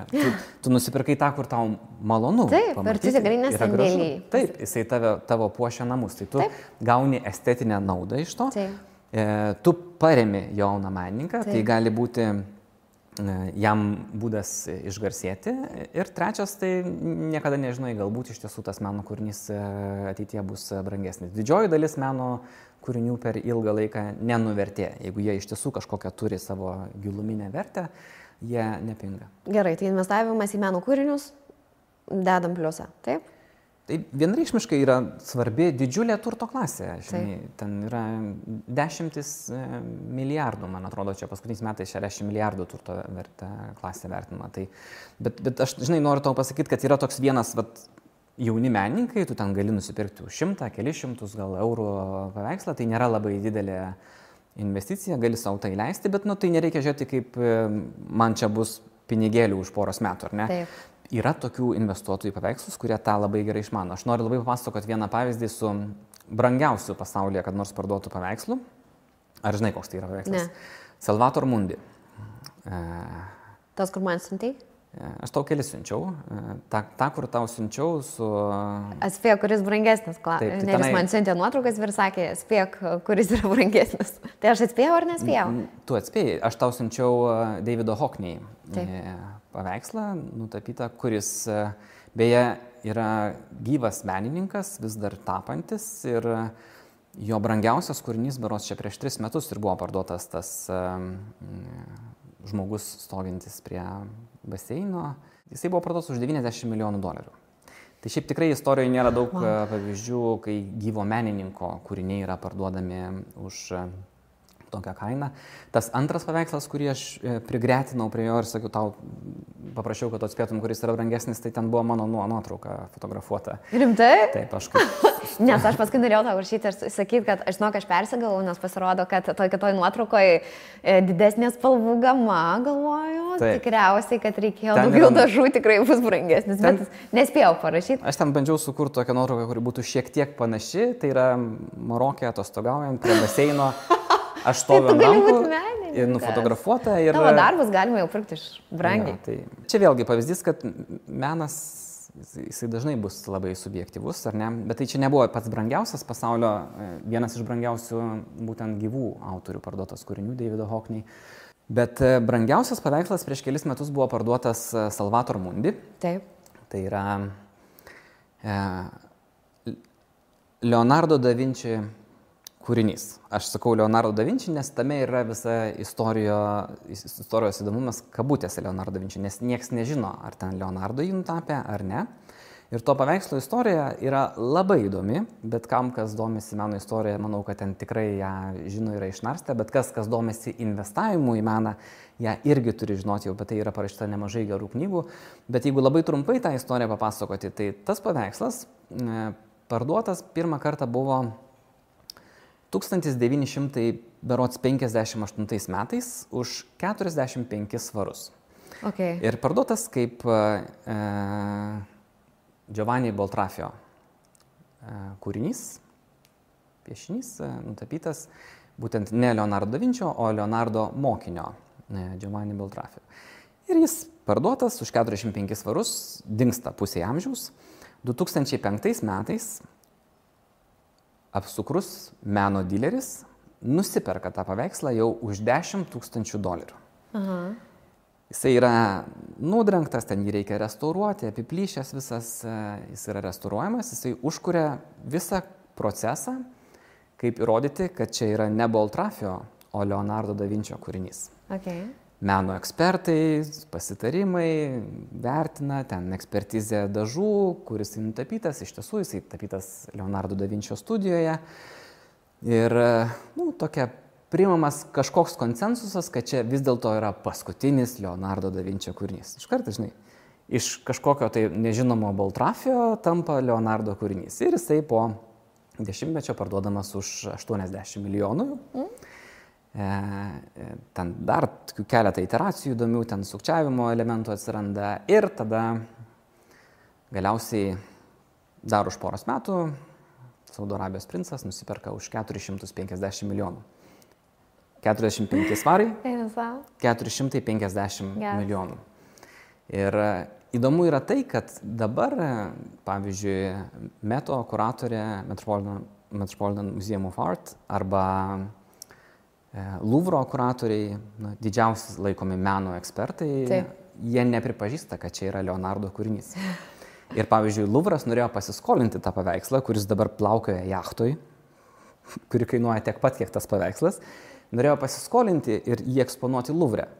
Tu nusipirkai tą, kur tau malonu. Taip, ir tu tikrai nesandėliai. Taip, jisai tavo puošia namus, tai tu gauni estetinę naudą iš to. Tu paremi jauną menininką, tai gali būti jam būdas išgarsėti. Ir trečias, tai niekada nežinai, galbūt iš tiesų tas meno kūrinys ateityje bus brangesnis. Didžioji dalis meno kūrinių per ilgą laiką nenuvertė. Jeigu jie iš tiesų kažkokią turi savo giluminę vertę, jie nepinga. Gerai, tai investavimas į meno kūrinius dedam pliusą, taip? Tai vienreikšmiškai yra svarbi didžiulė turto klasė. Žinai, ten yra 10 milijardų, man atrodo, čia paskutiniais metais 60 milijardų turto klasė vertinama. Bet aš, žinai, noriu tau pasakyti, kad yra toks vienas jauni menininkai, tu ten gali nusipirkti už 100, kelius šimtus gal eurų paveikslą, tai nėra labai didelė investicija, gali savo tai leisti, bet tai nereikia žiūrėti, kaip man čia bus pinigėlių už poros metų, ar ne? Taip. Yra tokių investuotojų paveikslus, kurie tą labai gerai išmano. Aš noriu labai papasakoti vieną pavyzdį su brangiausiu pasaulyje, kad nors parduotų paveikslų. Ar žinai, koks tai yra paveikslas? Ne. Salvator Mundi. Tas, kur man siuntei? Aš tau kelis siunčiau. Ta, kur tau siunčiau su... Atspėk, kuris brangesnis. Neris man siuntė nuotraukas ir sakė, atspėk, kuris yra brangesnis. Tai aš atspėjau ar nespėjau? Tu atspėjai. Aš tau siunčiau Davido Hockney paveikslą nutapytą, kuris beje yra gyvas menininkas, vis dar tapantis ir jo brangiausias kūrinys berods čia prieš 3 metus ir buvo parduotas tas žmogus stovintis prie baseino. Jisai buvo parduotas už $90 milijonų. Tai šiaip tikrai istorijoje nėra daug pavyzdžių, kai gyvo menininko kūriniai yra parduodami už tokią kainą. Tas antras paveikslas, kurį aš prigretinau prie jo ir sakiau, tau paprašiau, kad atspėtum, kuris yra brangesnis, tai ten buvo mano nuotrauka fotografuota. Rimtai? Taip, aš kaip... Nes aš paskui norėjau tau rašyti ir sakyti, kad aš žinau, kad aš persigalvau, nes pasirodo, kad toj nuotraukoje didesnė spalvų gama, galvoju. Taip. Tikriausiai, kad reikėjo ten daugiau dažų, tikrai bus brangesnis, bet nespėjau parašyti. Aš ten bandžiau sukurti tokią nuotrauką, kuri būtų šiek tiek panaši, tai yra Marokė atostogaujant prie baseino. Aš stoviu ant rankų ir nufotografuota. Ir... Tavo darbus galima jau pirkti iš brangiai. Ja, tai čia vėlgi pavyzdys, kad menas, jisai dažnai bus labai subjektyvus, ar ne? Bet tai čia nebuvo pats brangiausias pasaulio, vienas iš brangiausių būtent gyvų autorių parduotas kūrinių, Davido Hockney. Bet brangiausias paveikslas prieš kelis metus buvo parduotas Salvator Mundi. Taip. Tai yra Leonardo da Vinci kūrinys. Aš sakau Leonardo da Vinci, nes tame yra visa istorijos įdomumas kabutėse Leonardo da Vinci, nes nieks nežino, ar ten Leonardo jį nutapė ar ne. Ir to paveikslo istorija yra labai įdomi, bet kam, kas domisi meno istorija, manau, kad ten tikrai ją žino, yra išnarstę, bet kas domisi investavimu į meną, ją irgi turi žinoti, jau apie tai yra parašyta nemažai gerų knygų. Bet jeigu labai trumpai tą istoriją papasakoti, tai tas paveikslas parduotas pirmą kartą buvo 1958 metais už 45 svarus. Okay. Ir parduotas kaip Giovanni Boltrafio kūrinys, piešinys, nutapytas būtent ne Leonardo da Vinčio, o Leonardo mokinio Giovanni Boltrafio. Ir jis parduotas už 45 svarus, dingsta pusė amžiaus. 2005 metais apsukrus meno dileris nusiperka tą paveikslą jau už $10,000. Aha. Jisai yra nudrengtas, ten jį reikia restauruoti, apiplyšęs visas, jis yra restauruojamas, jisai užkuria visą procesą, kaip įrodyti, kad čia yra ne Boltrafio, o Leonardo da Vinčio kūrinys. Okay. Meno ekspertai, pasitarimai, vertina, ten ekspertizė dažų, kuris nutapytas, iš tiesų jisai tapytas Leonardo da Vinčio studijoje. Ir, tokia priimamas kažkoks konsensusas, kad čia vis dėlto yra paskutinis Leonardo da Vinčio kūrinys. Iš karto, žinai, iš kažkokio tai nežinomo Boltrafio tampa Leonardo kūrinys. Ir jisai po 10 parduodamas už 80 milijonų. Ten dar keletą iteracijų įdomių, ten sukčiavimo elementų atsiranda. Ir tada galiausiai dar už poros metų Saudo Arabijos princas nusiperka už 450 milijonų. 45 svarai, 450 milijonų. Ir įdomu yra tai, kad dabar, pavyzdžiui, Meto kuratorė Metropolitan Museum of Art arba Louvro kuratoriai, didžiausi laikomi meno ekspertai, jie nepripažįsta, kad čia yra Leonardo kūrinys. Ir pavyzdžiui, Louvras norėjo pasiskolinti tą paveikslą, kuris dabar plaukioja jachtoj, kuri kainuoja tiek pat, kiek tas paveikslas, norėjo pasiskolinti ir jį eksponuoti Louvre.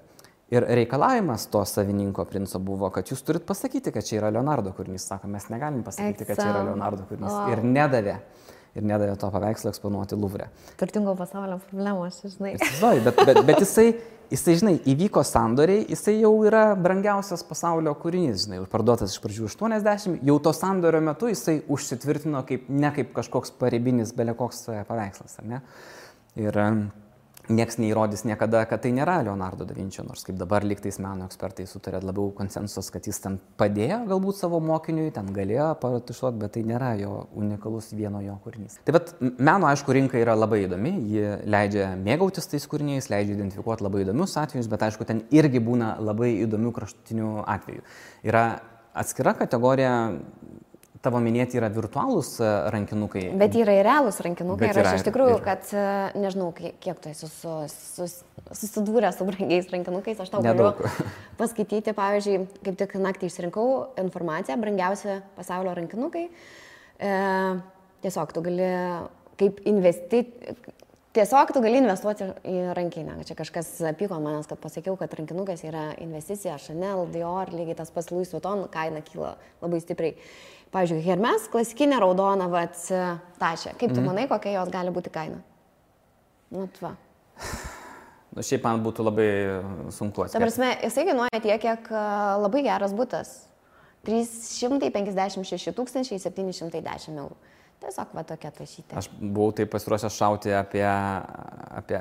Ir reikalavimas to savininko princo buvo, kad jūs turit pasakyti, kad čia yra Leonardo kūrinys. Sako, mes negalim pasakyti, kad čia yra Leonardo kūrinys. Wow. Ir nedavė to paveikslo eksponuoti Louvre. Turtingo pasaulio problemos, žinai. Bet jisai, žinai, įvyko sandoriai, jisai jau yra brangiausias pasaulio kūrinys, žinai, parduotas iš pradžių 80, jau to sandorio metu jisai užsitvirtino ne kaip kažkoks paribinis belekoks paveikslas, ar ne? Ir nieks neįrodys niekada, kad tai nėra Leonardo da Vinčio, nors kaip dabar lygtais meno ekspertai sutarė labiau konsensus, kad jis ten padėjo galbūt savo mokiniui, ten galėjo paratušuoti, bet tai nėra jo unikalus vieno jo kūrinys. Tai bet meno, aišku, rinka yra labai įdomi, ji leidžia mėgautis tais kūriniais, leidžia identifikuoti labai įdomius atvejus, bet aišku, ten irgi būna labai įdomių kraštutinių atvejų. Yra atskira kategorija. Tavo minėti yra virtualūs rankinukai. Bet yra ir realūs rankinukai. Ir aš iš tikrųjų, kad nežinau, kiek tu esi susidūrę su brangiais rankinukais, aš tau galiu paskaityti, pavyzdžiui, kaip tik naktį išsirinkau informaciją, brangiausi pasaulio rankinukai. Tiesiog tu gali investuoti į rankinę. Čia kažkas pyko manęs, kad pasakiau, kad rankinukas yra investicija, Chanel, Dior, lygiai tas pats Louis Vuitton, kaina kyla labai stipriai. Pavyzdžiui, Hermes, klasikinė raudona, tašė. Kaip tu manai, kokia jos gali būti kaina? Šiaip man būtų labai sunku atskirti. Ta prasme, jisai kainuoja tiek, kiek labai geras butas. 356 710 eurų. Tiesiog tokia tašytė. Aš buvau taip pasiruošęs šauti apie...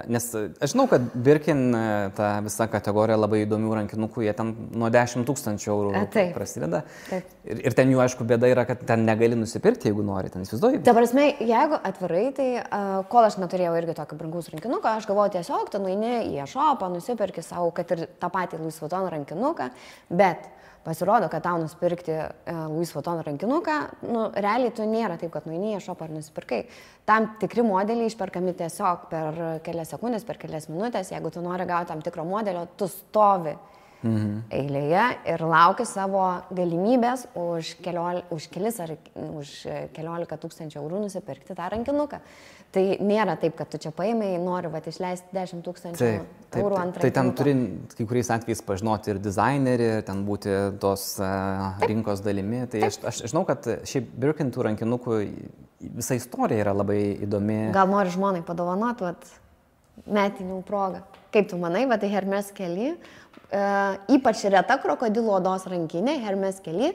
Nes aš žinau, kad Birkin, ta visa kategorija labai įdomių rankinukų, jie ten nuo 10 000 eurų prasideda. Taip. Ir ten jų, aišku, bėda yra, kad ten negali nusipirkti, jeigu nori, ten įsivaizduoji. Ta prasme, jeigu atvirai, tai kol aš neturėjau irgi tokio brangaus rankinuko, aš galvoju tiesiog, tu nueini į e-shopą, nusipirki savo, kad ir tą patį Louis Vuitton rankinuką, bet pasirodo, kad tau nusipirkti Louis Vuitton rankinuką, realiai tu nėra taip, kad nueini į e-shopą ar nusipirkai. Tam tikri modeliai išperkami tiesiog per kelias sekundės, per kelias minutės. Jeigu tu nori gauti tam tikro modelio, tu stovi eilėje ir lauki savo galimybės už keliolika tūkstančių eurų nusipirkti tą rankinuką. Tai nėra taip, kad tu čia paėmei, nori išleisti 10 000 eurų ant rankinuko. Tai ten turi kai kuriais atvejais pažinoti ir dizainerį, ten būti tos rinkos dalimi. Tai aš žinau, kad šiaip Birkin tų rankinukų visa istorija yra labai įdomi. Gal nori žmonai padovanoti metinių progą. Kaip tu manai, tai Hermes Kelly, ypač reta krokodilo odos rankinė, Hermes Kelly,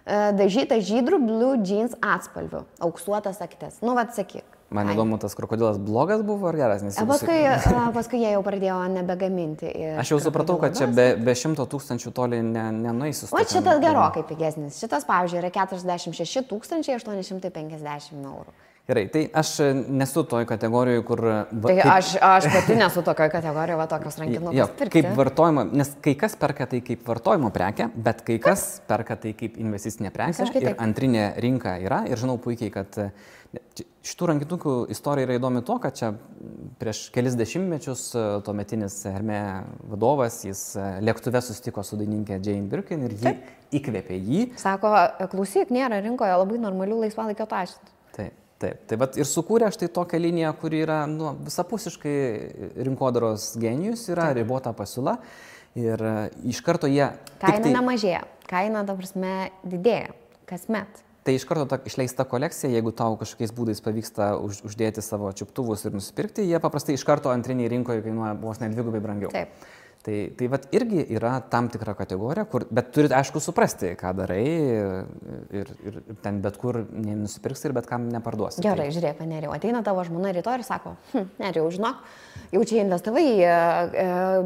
dažyta žydrų blue jeans atspalviu, auksuotas aktis. Nu, vat sakyk. Man įdomu, tas krokodilas blogas buvo ar geras? Nes Paskui jie jau pradėjo nebegaminti. Aš jau supratau, kad čia be 100 000 toli nenueisi. O šitas gerokai pigesnis. Šitas, pavyzdžiui, yra 46 850 eurų. Gerai, tai aš nesu toj kategorijoje, kur... Tai aš pati nesu tokioje kategorijoje, va tokios rankinukus pirkti. Kaip vartojimo, nes kai kas perka tai kaip vartojimo prekę, bet kai kas perka tai kaip investicinė prekė ir antrinė rinka yra. Ir žinau puikiai, kad šitų rankinukų istorija yra įdomi to, kad čia prieš kelis dešimtmečius tuometinis Hermė vadovas, jis lėktuve susitiko su dainininkė Jane Birkin ir ji įkvėpė jį. Sako, klausyk, nėra rinkoje labai normalių laisvalaikio taškų. Taip, tai vat ir sukūrė štai tokią liniją, kuri yra visapusiškai rinkodaros genijus, yra ribota pasiūla ir iš karto jie... Kaina nemažėja, kaina, ta prasme, didėja kasmet. Tai iš karto ta išleista kolekcija, jeigu tau kažkokiais būdais pavyksta uždėti savo čiuptuvus ir nusipirkti, jie paprastai iš karto antriniai rinkoje kainuoja vos net dvigubai brangiau. Taip. Tai vat irgi yra tam tikra kategorija, bet turit aišku suprasti, ką darai ir ten bet kur nenusipirksi ir bet kam neparduosi. Gerai, žiūrėk, Nerijau, ateina tavo žmona rytoj ir sako, Nerijau, žinok, jau čia investavai į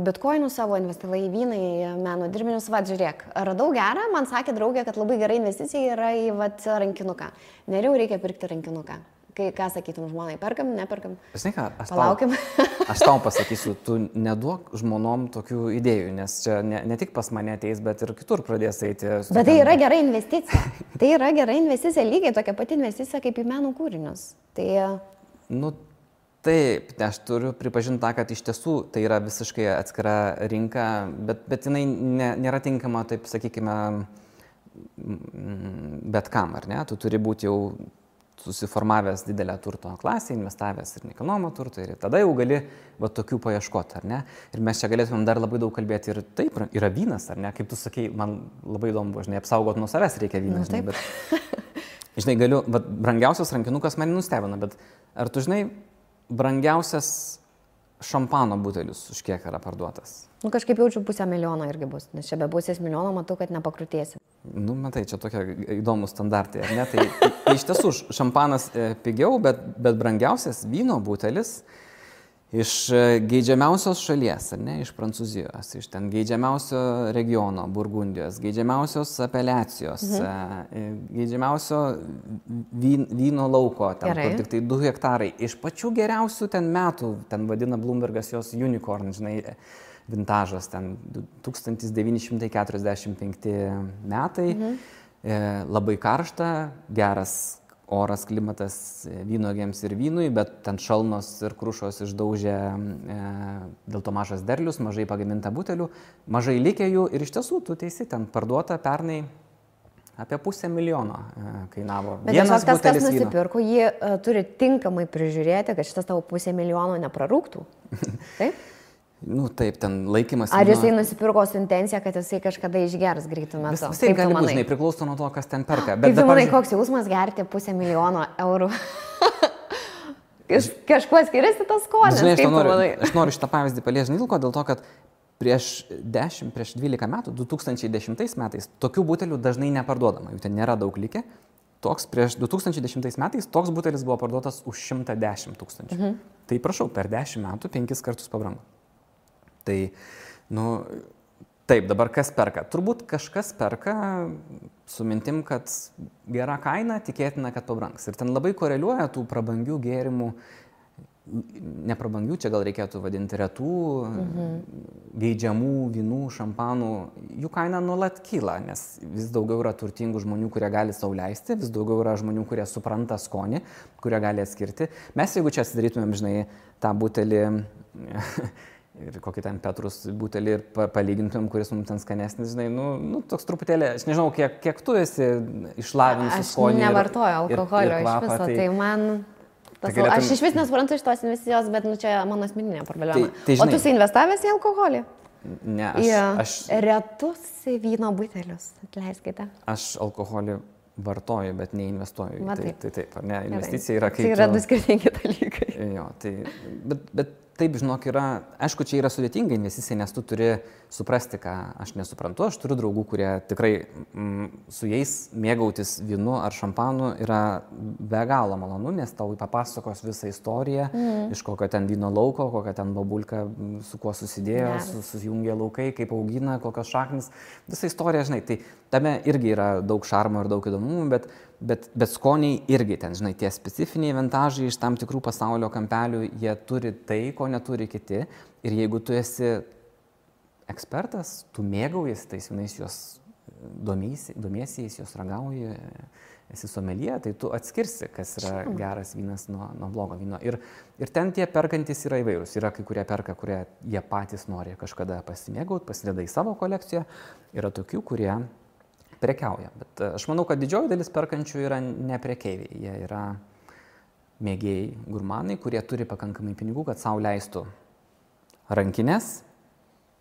bitkoinus savo, investavai į vyną, į meno dirbinius, va, žiūrėk, radau gerą, man sakė draugė, kad labai gera investicija yra į rankinuką. Nerijau, reikia pirkti rankinuką. Ką sakytum žmonai, perkam, neperkam? Žinai ką, palaukim. Aš tau pasakysiu, tu neduok žmonom tokių idėjų, nes čia ne tik pas mane ateis, bet ir kitur pradės eiti. Bet tai yra gera investicija. Tai yra gera investicija, lygiai tokia pati investicija kaip į meno kūrinius. Tai... Nu, taip, aš turiu pripažinti tą, kad iš tiesų tai yra visiškai atskira rinka, bet jinai nėra tinkama, taip sakykime, bet kam, ar ne? Tu turi būti jau susiformavęs didelę turto klasę, investavęs ir nekilnojamą turtą ir tada jau gali va tokių paieškoti, ar ne? Ir mes čia galėtumėm dar labai daug kalbėti ir taip, yra vynas, ar ne? Kaip tu sakei, man labai įdomu buvo, žinai, apsaugot nuo savęs reikia vyną, žinai, bet, žinai, galiu, va, brangiausias rankinukas mane nustebina, bet ar tu žinai, brangiausias šampano butelis už kiek yra parduotas? Nu, kažkaip jaučiu 500 000 irgi bus, nes čia be 500 000 matau, kad nepakrutėsi. Nu, matai, čia tokie įdomus standartai, ar ne? Tai iš tiesų šampanas pigiau, bet brangiausias vyno butelis iš geidžiamiausios šalies, ar ne? Iš Prancūzijos, iš ten geidžiamiausio regiono, Burgundijos, geidžiamiausios apeliacijos, geidžiamiausio vyno lauko, ten, kur tik tai 2 hektarai. Iš pačių geriausių ten metų, ten vadina Bloombergas jos unicorn, žinai, vintažas, ten 1945 metai, labai karšta, geras oras, klimatas vynuogėms ir vynui, bet ten šalnos ir krušos išdaužė dėl to mažas derlius, mažai pagaminta butelių, mažai likė jų ir iš tiesų, tu teisi, ten parduota pernai apie 500 000 kainavo. Bet vienas kas nusipirko, jį turi tinkamai prižiūrėti, kad šitas tavo 500 000 neprarūktų. Taip? Nu taip, ten laikymas... Ar jisai nusipirko su intencija, kad jisai kažkada išgers greitų metų? Visai gali būti, žinai, priklauso nuo to, kas ten perka. Bet kaip tu manai, koks jausmas gerti 500 000 eurų? Kažkuo skiriasi tas skonis, žinai, kaip tu manai? Aš noriu šitą pavyzdį paliesti, dėl to, kad prieš 12 metų, 2010 metais, tokių butelių dažnai neparduodama, jų ten nėra daug likę. Prieš 2010 metais toks butelis buvo parduotas už 110 000. Tai prašau, per 10 metų 5 kartus pabrango. Tai, nu, taip, dabar kas perka? Turbūt kažkas perka su mintim, kad gera kaina, tikėtina, kad pabrangs. Ir ten labai koreliuoja tų prabangių gėrimų, neprabangių, čia gal reikėtų vadinti retų, geidžiamų vynų, šampanų, jų kaina nuolat kyla, nes vis daugiau yra turtingų žmonių, kurie gali sau leisti, vis daugiau yra žmonių, kurie supranta skonį, kurie gali atskirti. Mes, jeigu čia atsidarytumėm, žinai, tą butelį ir kokį ten Petrus butelį ir palygintumėm, kuris mums ten skanesnis, žinai, nu toks truputėlį, aš nežinau, kiek tu esi išlavinusi skonį. Aš nevartoju alkoholio iš viso, tai man... Aš iš vis nesuprantu iš tos investicijos, bet čia mano asmeninė problema. O tu esi investavęs į alkoholį? Ne, aš... Retus vyno butelius, atleiskite. Aš alkoholį vartoju, bet neinvestuoju. Taip, ar ne, investicija yra kaip... Tai yra du skirtingi dalykai. Jo, tai... Bet taip, žinok, yra... Aišku, čia yra sudėtinga investicija, nes tu turi suprasti, ką aš nesuprantu. Aš turiu draugų, kurie tikrai su jais mėgautis vynu ar šampanu yra be galo malonu, nes tau papasakos visą istoriją, iš kokio ten vyno lauko, kokia ten babulka, su kuo susidėjo, susijungė laukai, kaip augina, kokios šaknis. Visa istorija, žinai, tai tame irgi yra daug šarmo ir daug įdomumų, bet skoniai irgi ten, žinai, tie specifiniai vintažai iš tam tikrų pasaulio kampelių, jie turi tai, ko neturi kiti. Ir jeigu tu esi ekspertas, tu mėgaujasi tais vynais, juos domiesi, juos ragauji, esi someljė, tai tu atskirsi, kas yra geras vynas nuo blogo vyno. Ir ten tie perkantys yra įvairūs. Yra kai kurie perka, kurie jie patys nori kažkada pasimėgauti, pasideda į savo kolekciją. Yra tokių, kurie prekiauja. Bet aš manau, kad didžioji dalis perkančių yra ne prekeiviai. Jie yra mėgėjai, gurmanai, kurie turi pakankamai pinigų, kad sau leistų rankinės,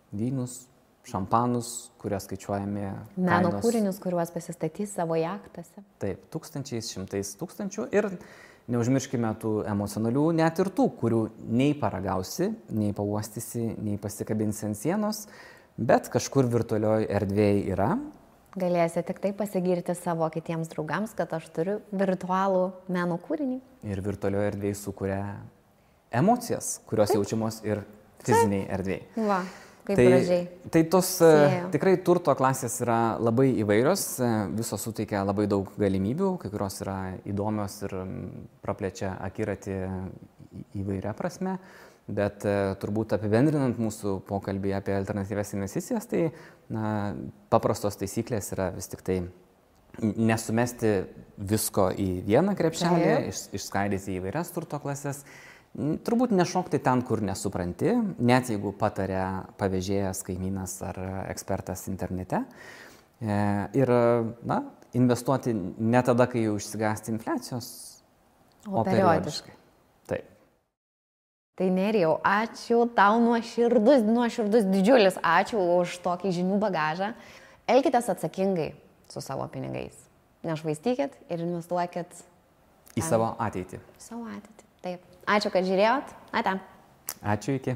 vynus, šampanus, kurie skaičiuojami meno kūrinius, kuriuos pasistatys savo jachtose. Taip, tūkstančiais, šimtais tūkstančių. Ir neužmirškime tų emocionalių, net ir tų, kurių nei paragausi, nei pauostysi, nei pasikabinsi ant sienos, bet kažkur virtualioje erdvėje yra. Galėsi tik tai pasigirti savo kitiems draugams, kad aš turiu virtualų meno kūrinį. Ir virtualioje erdvėje sukuria emocijas, kurios jaučiamos ir fiziniai erdvėje. Va, kaip gražiai. Tai tos tikrai turto klasės yra labai įvairios, visos suteikia labai daug galimybių, kai kurios yra įdomios ir praplečia akiratį įvairia prasme. Bet turbūt apibendrinant mūsų pokalbį apie alternatyvias investicijas, tai paprastos taisyklės yra vis tik tai nesumesti visko į vieną krepšelį, išskaidyti į įvairias turto klasės, turbūt nešokti ten, kur nesupranti, net jeigu patarė pavėžėjas, kaimynas ar ekspertas internete. Ir investuoti ne tada, kai jau išsigąsti infliacijos, o periodiškai. Taip. Tai Nerijau, ačiū tau nuoširdus didžiulis ačiū už tokį žinių bagažą. Elkitės atsakingai su savo pinigais. Nešvaistykit ir investuokit į savo ateitį. Savo ateitį, taip. Ačiū, kad žiūrėjot. Ate. Ačiū, iki.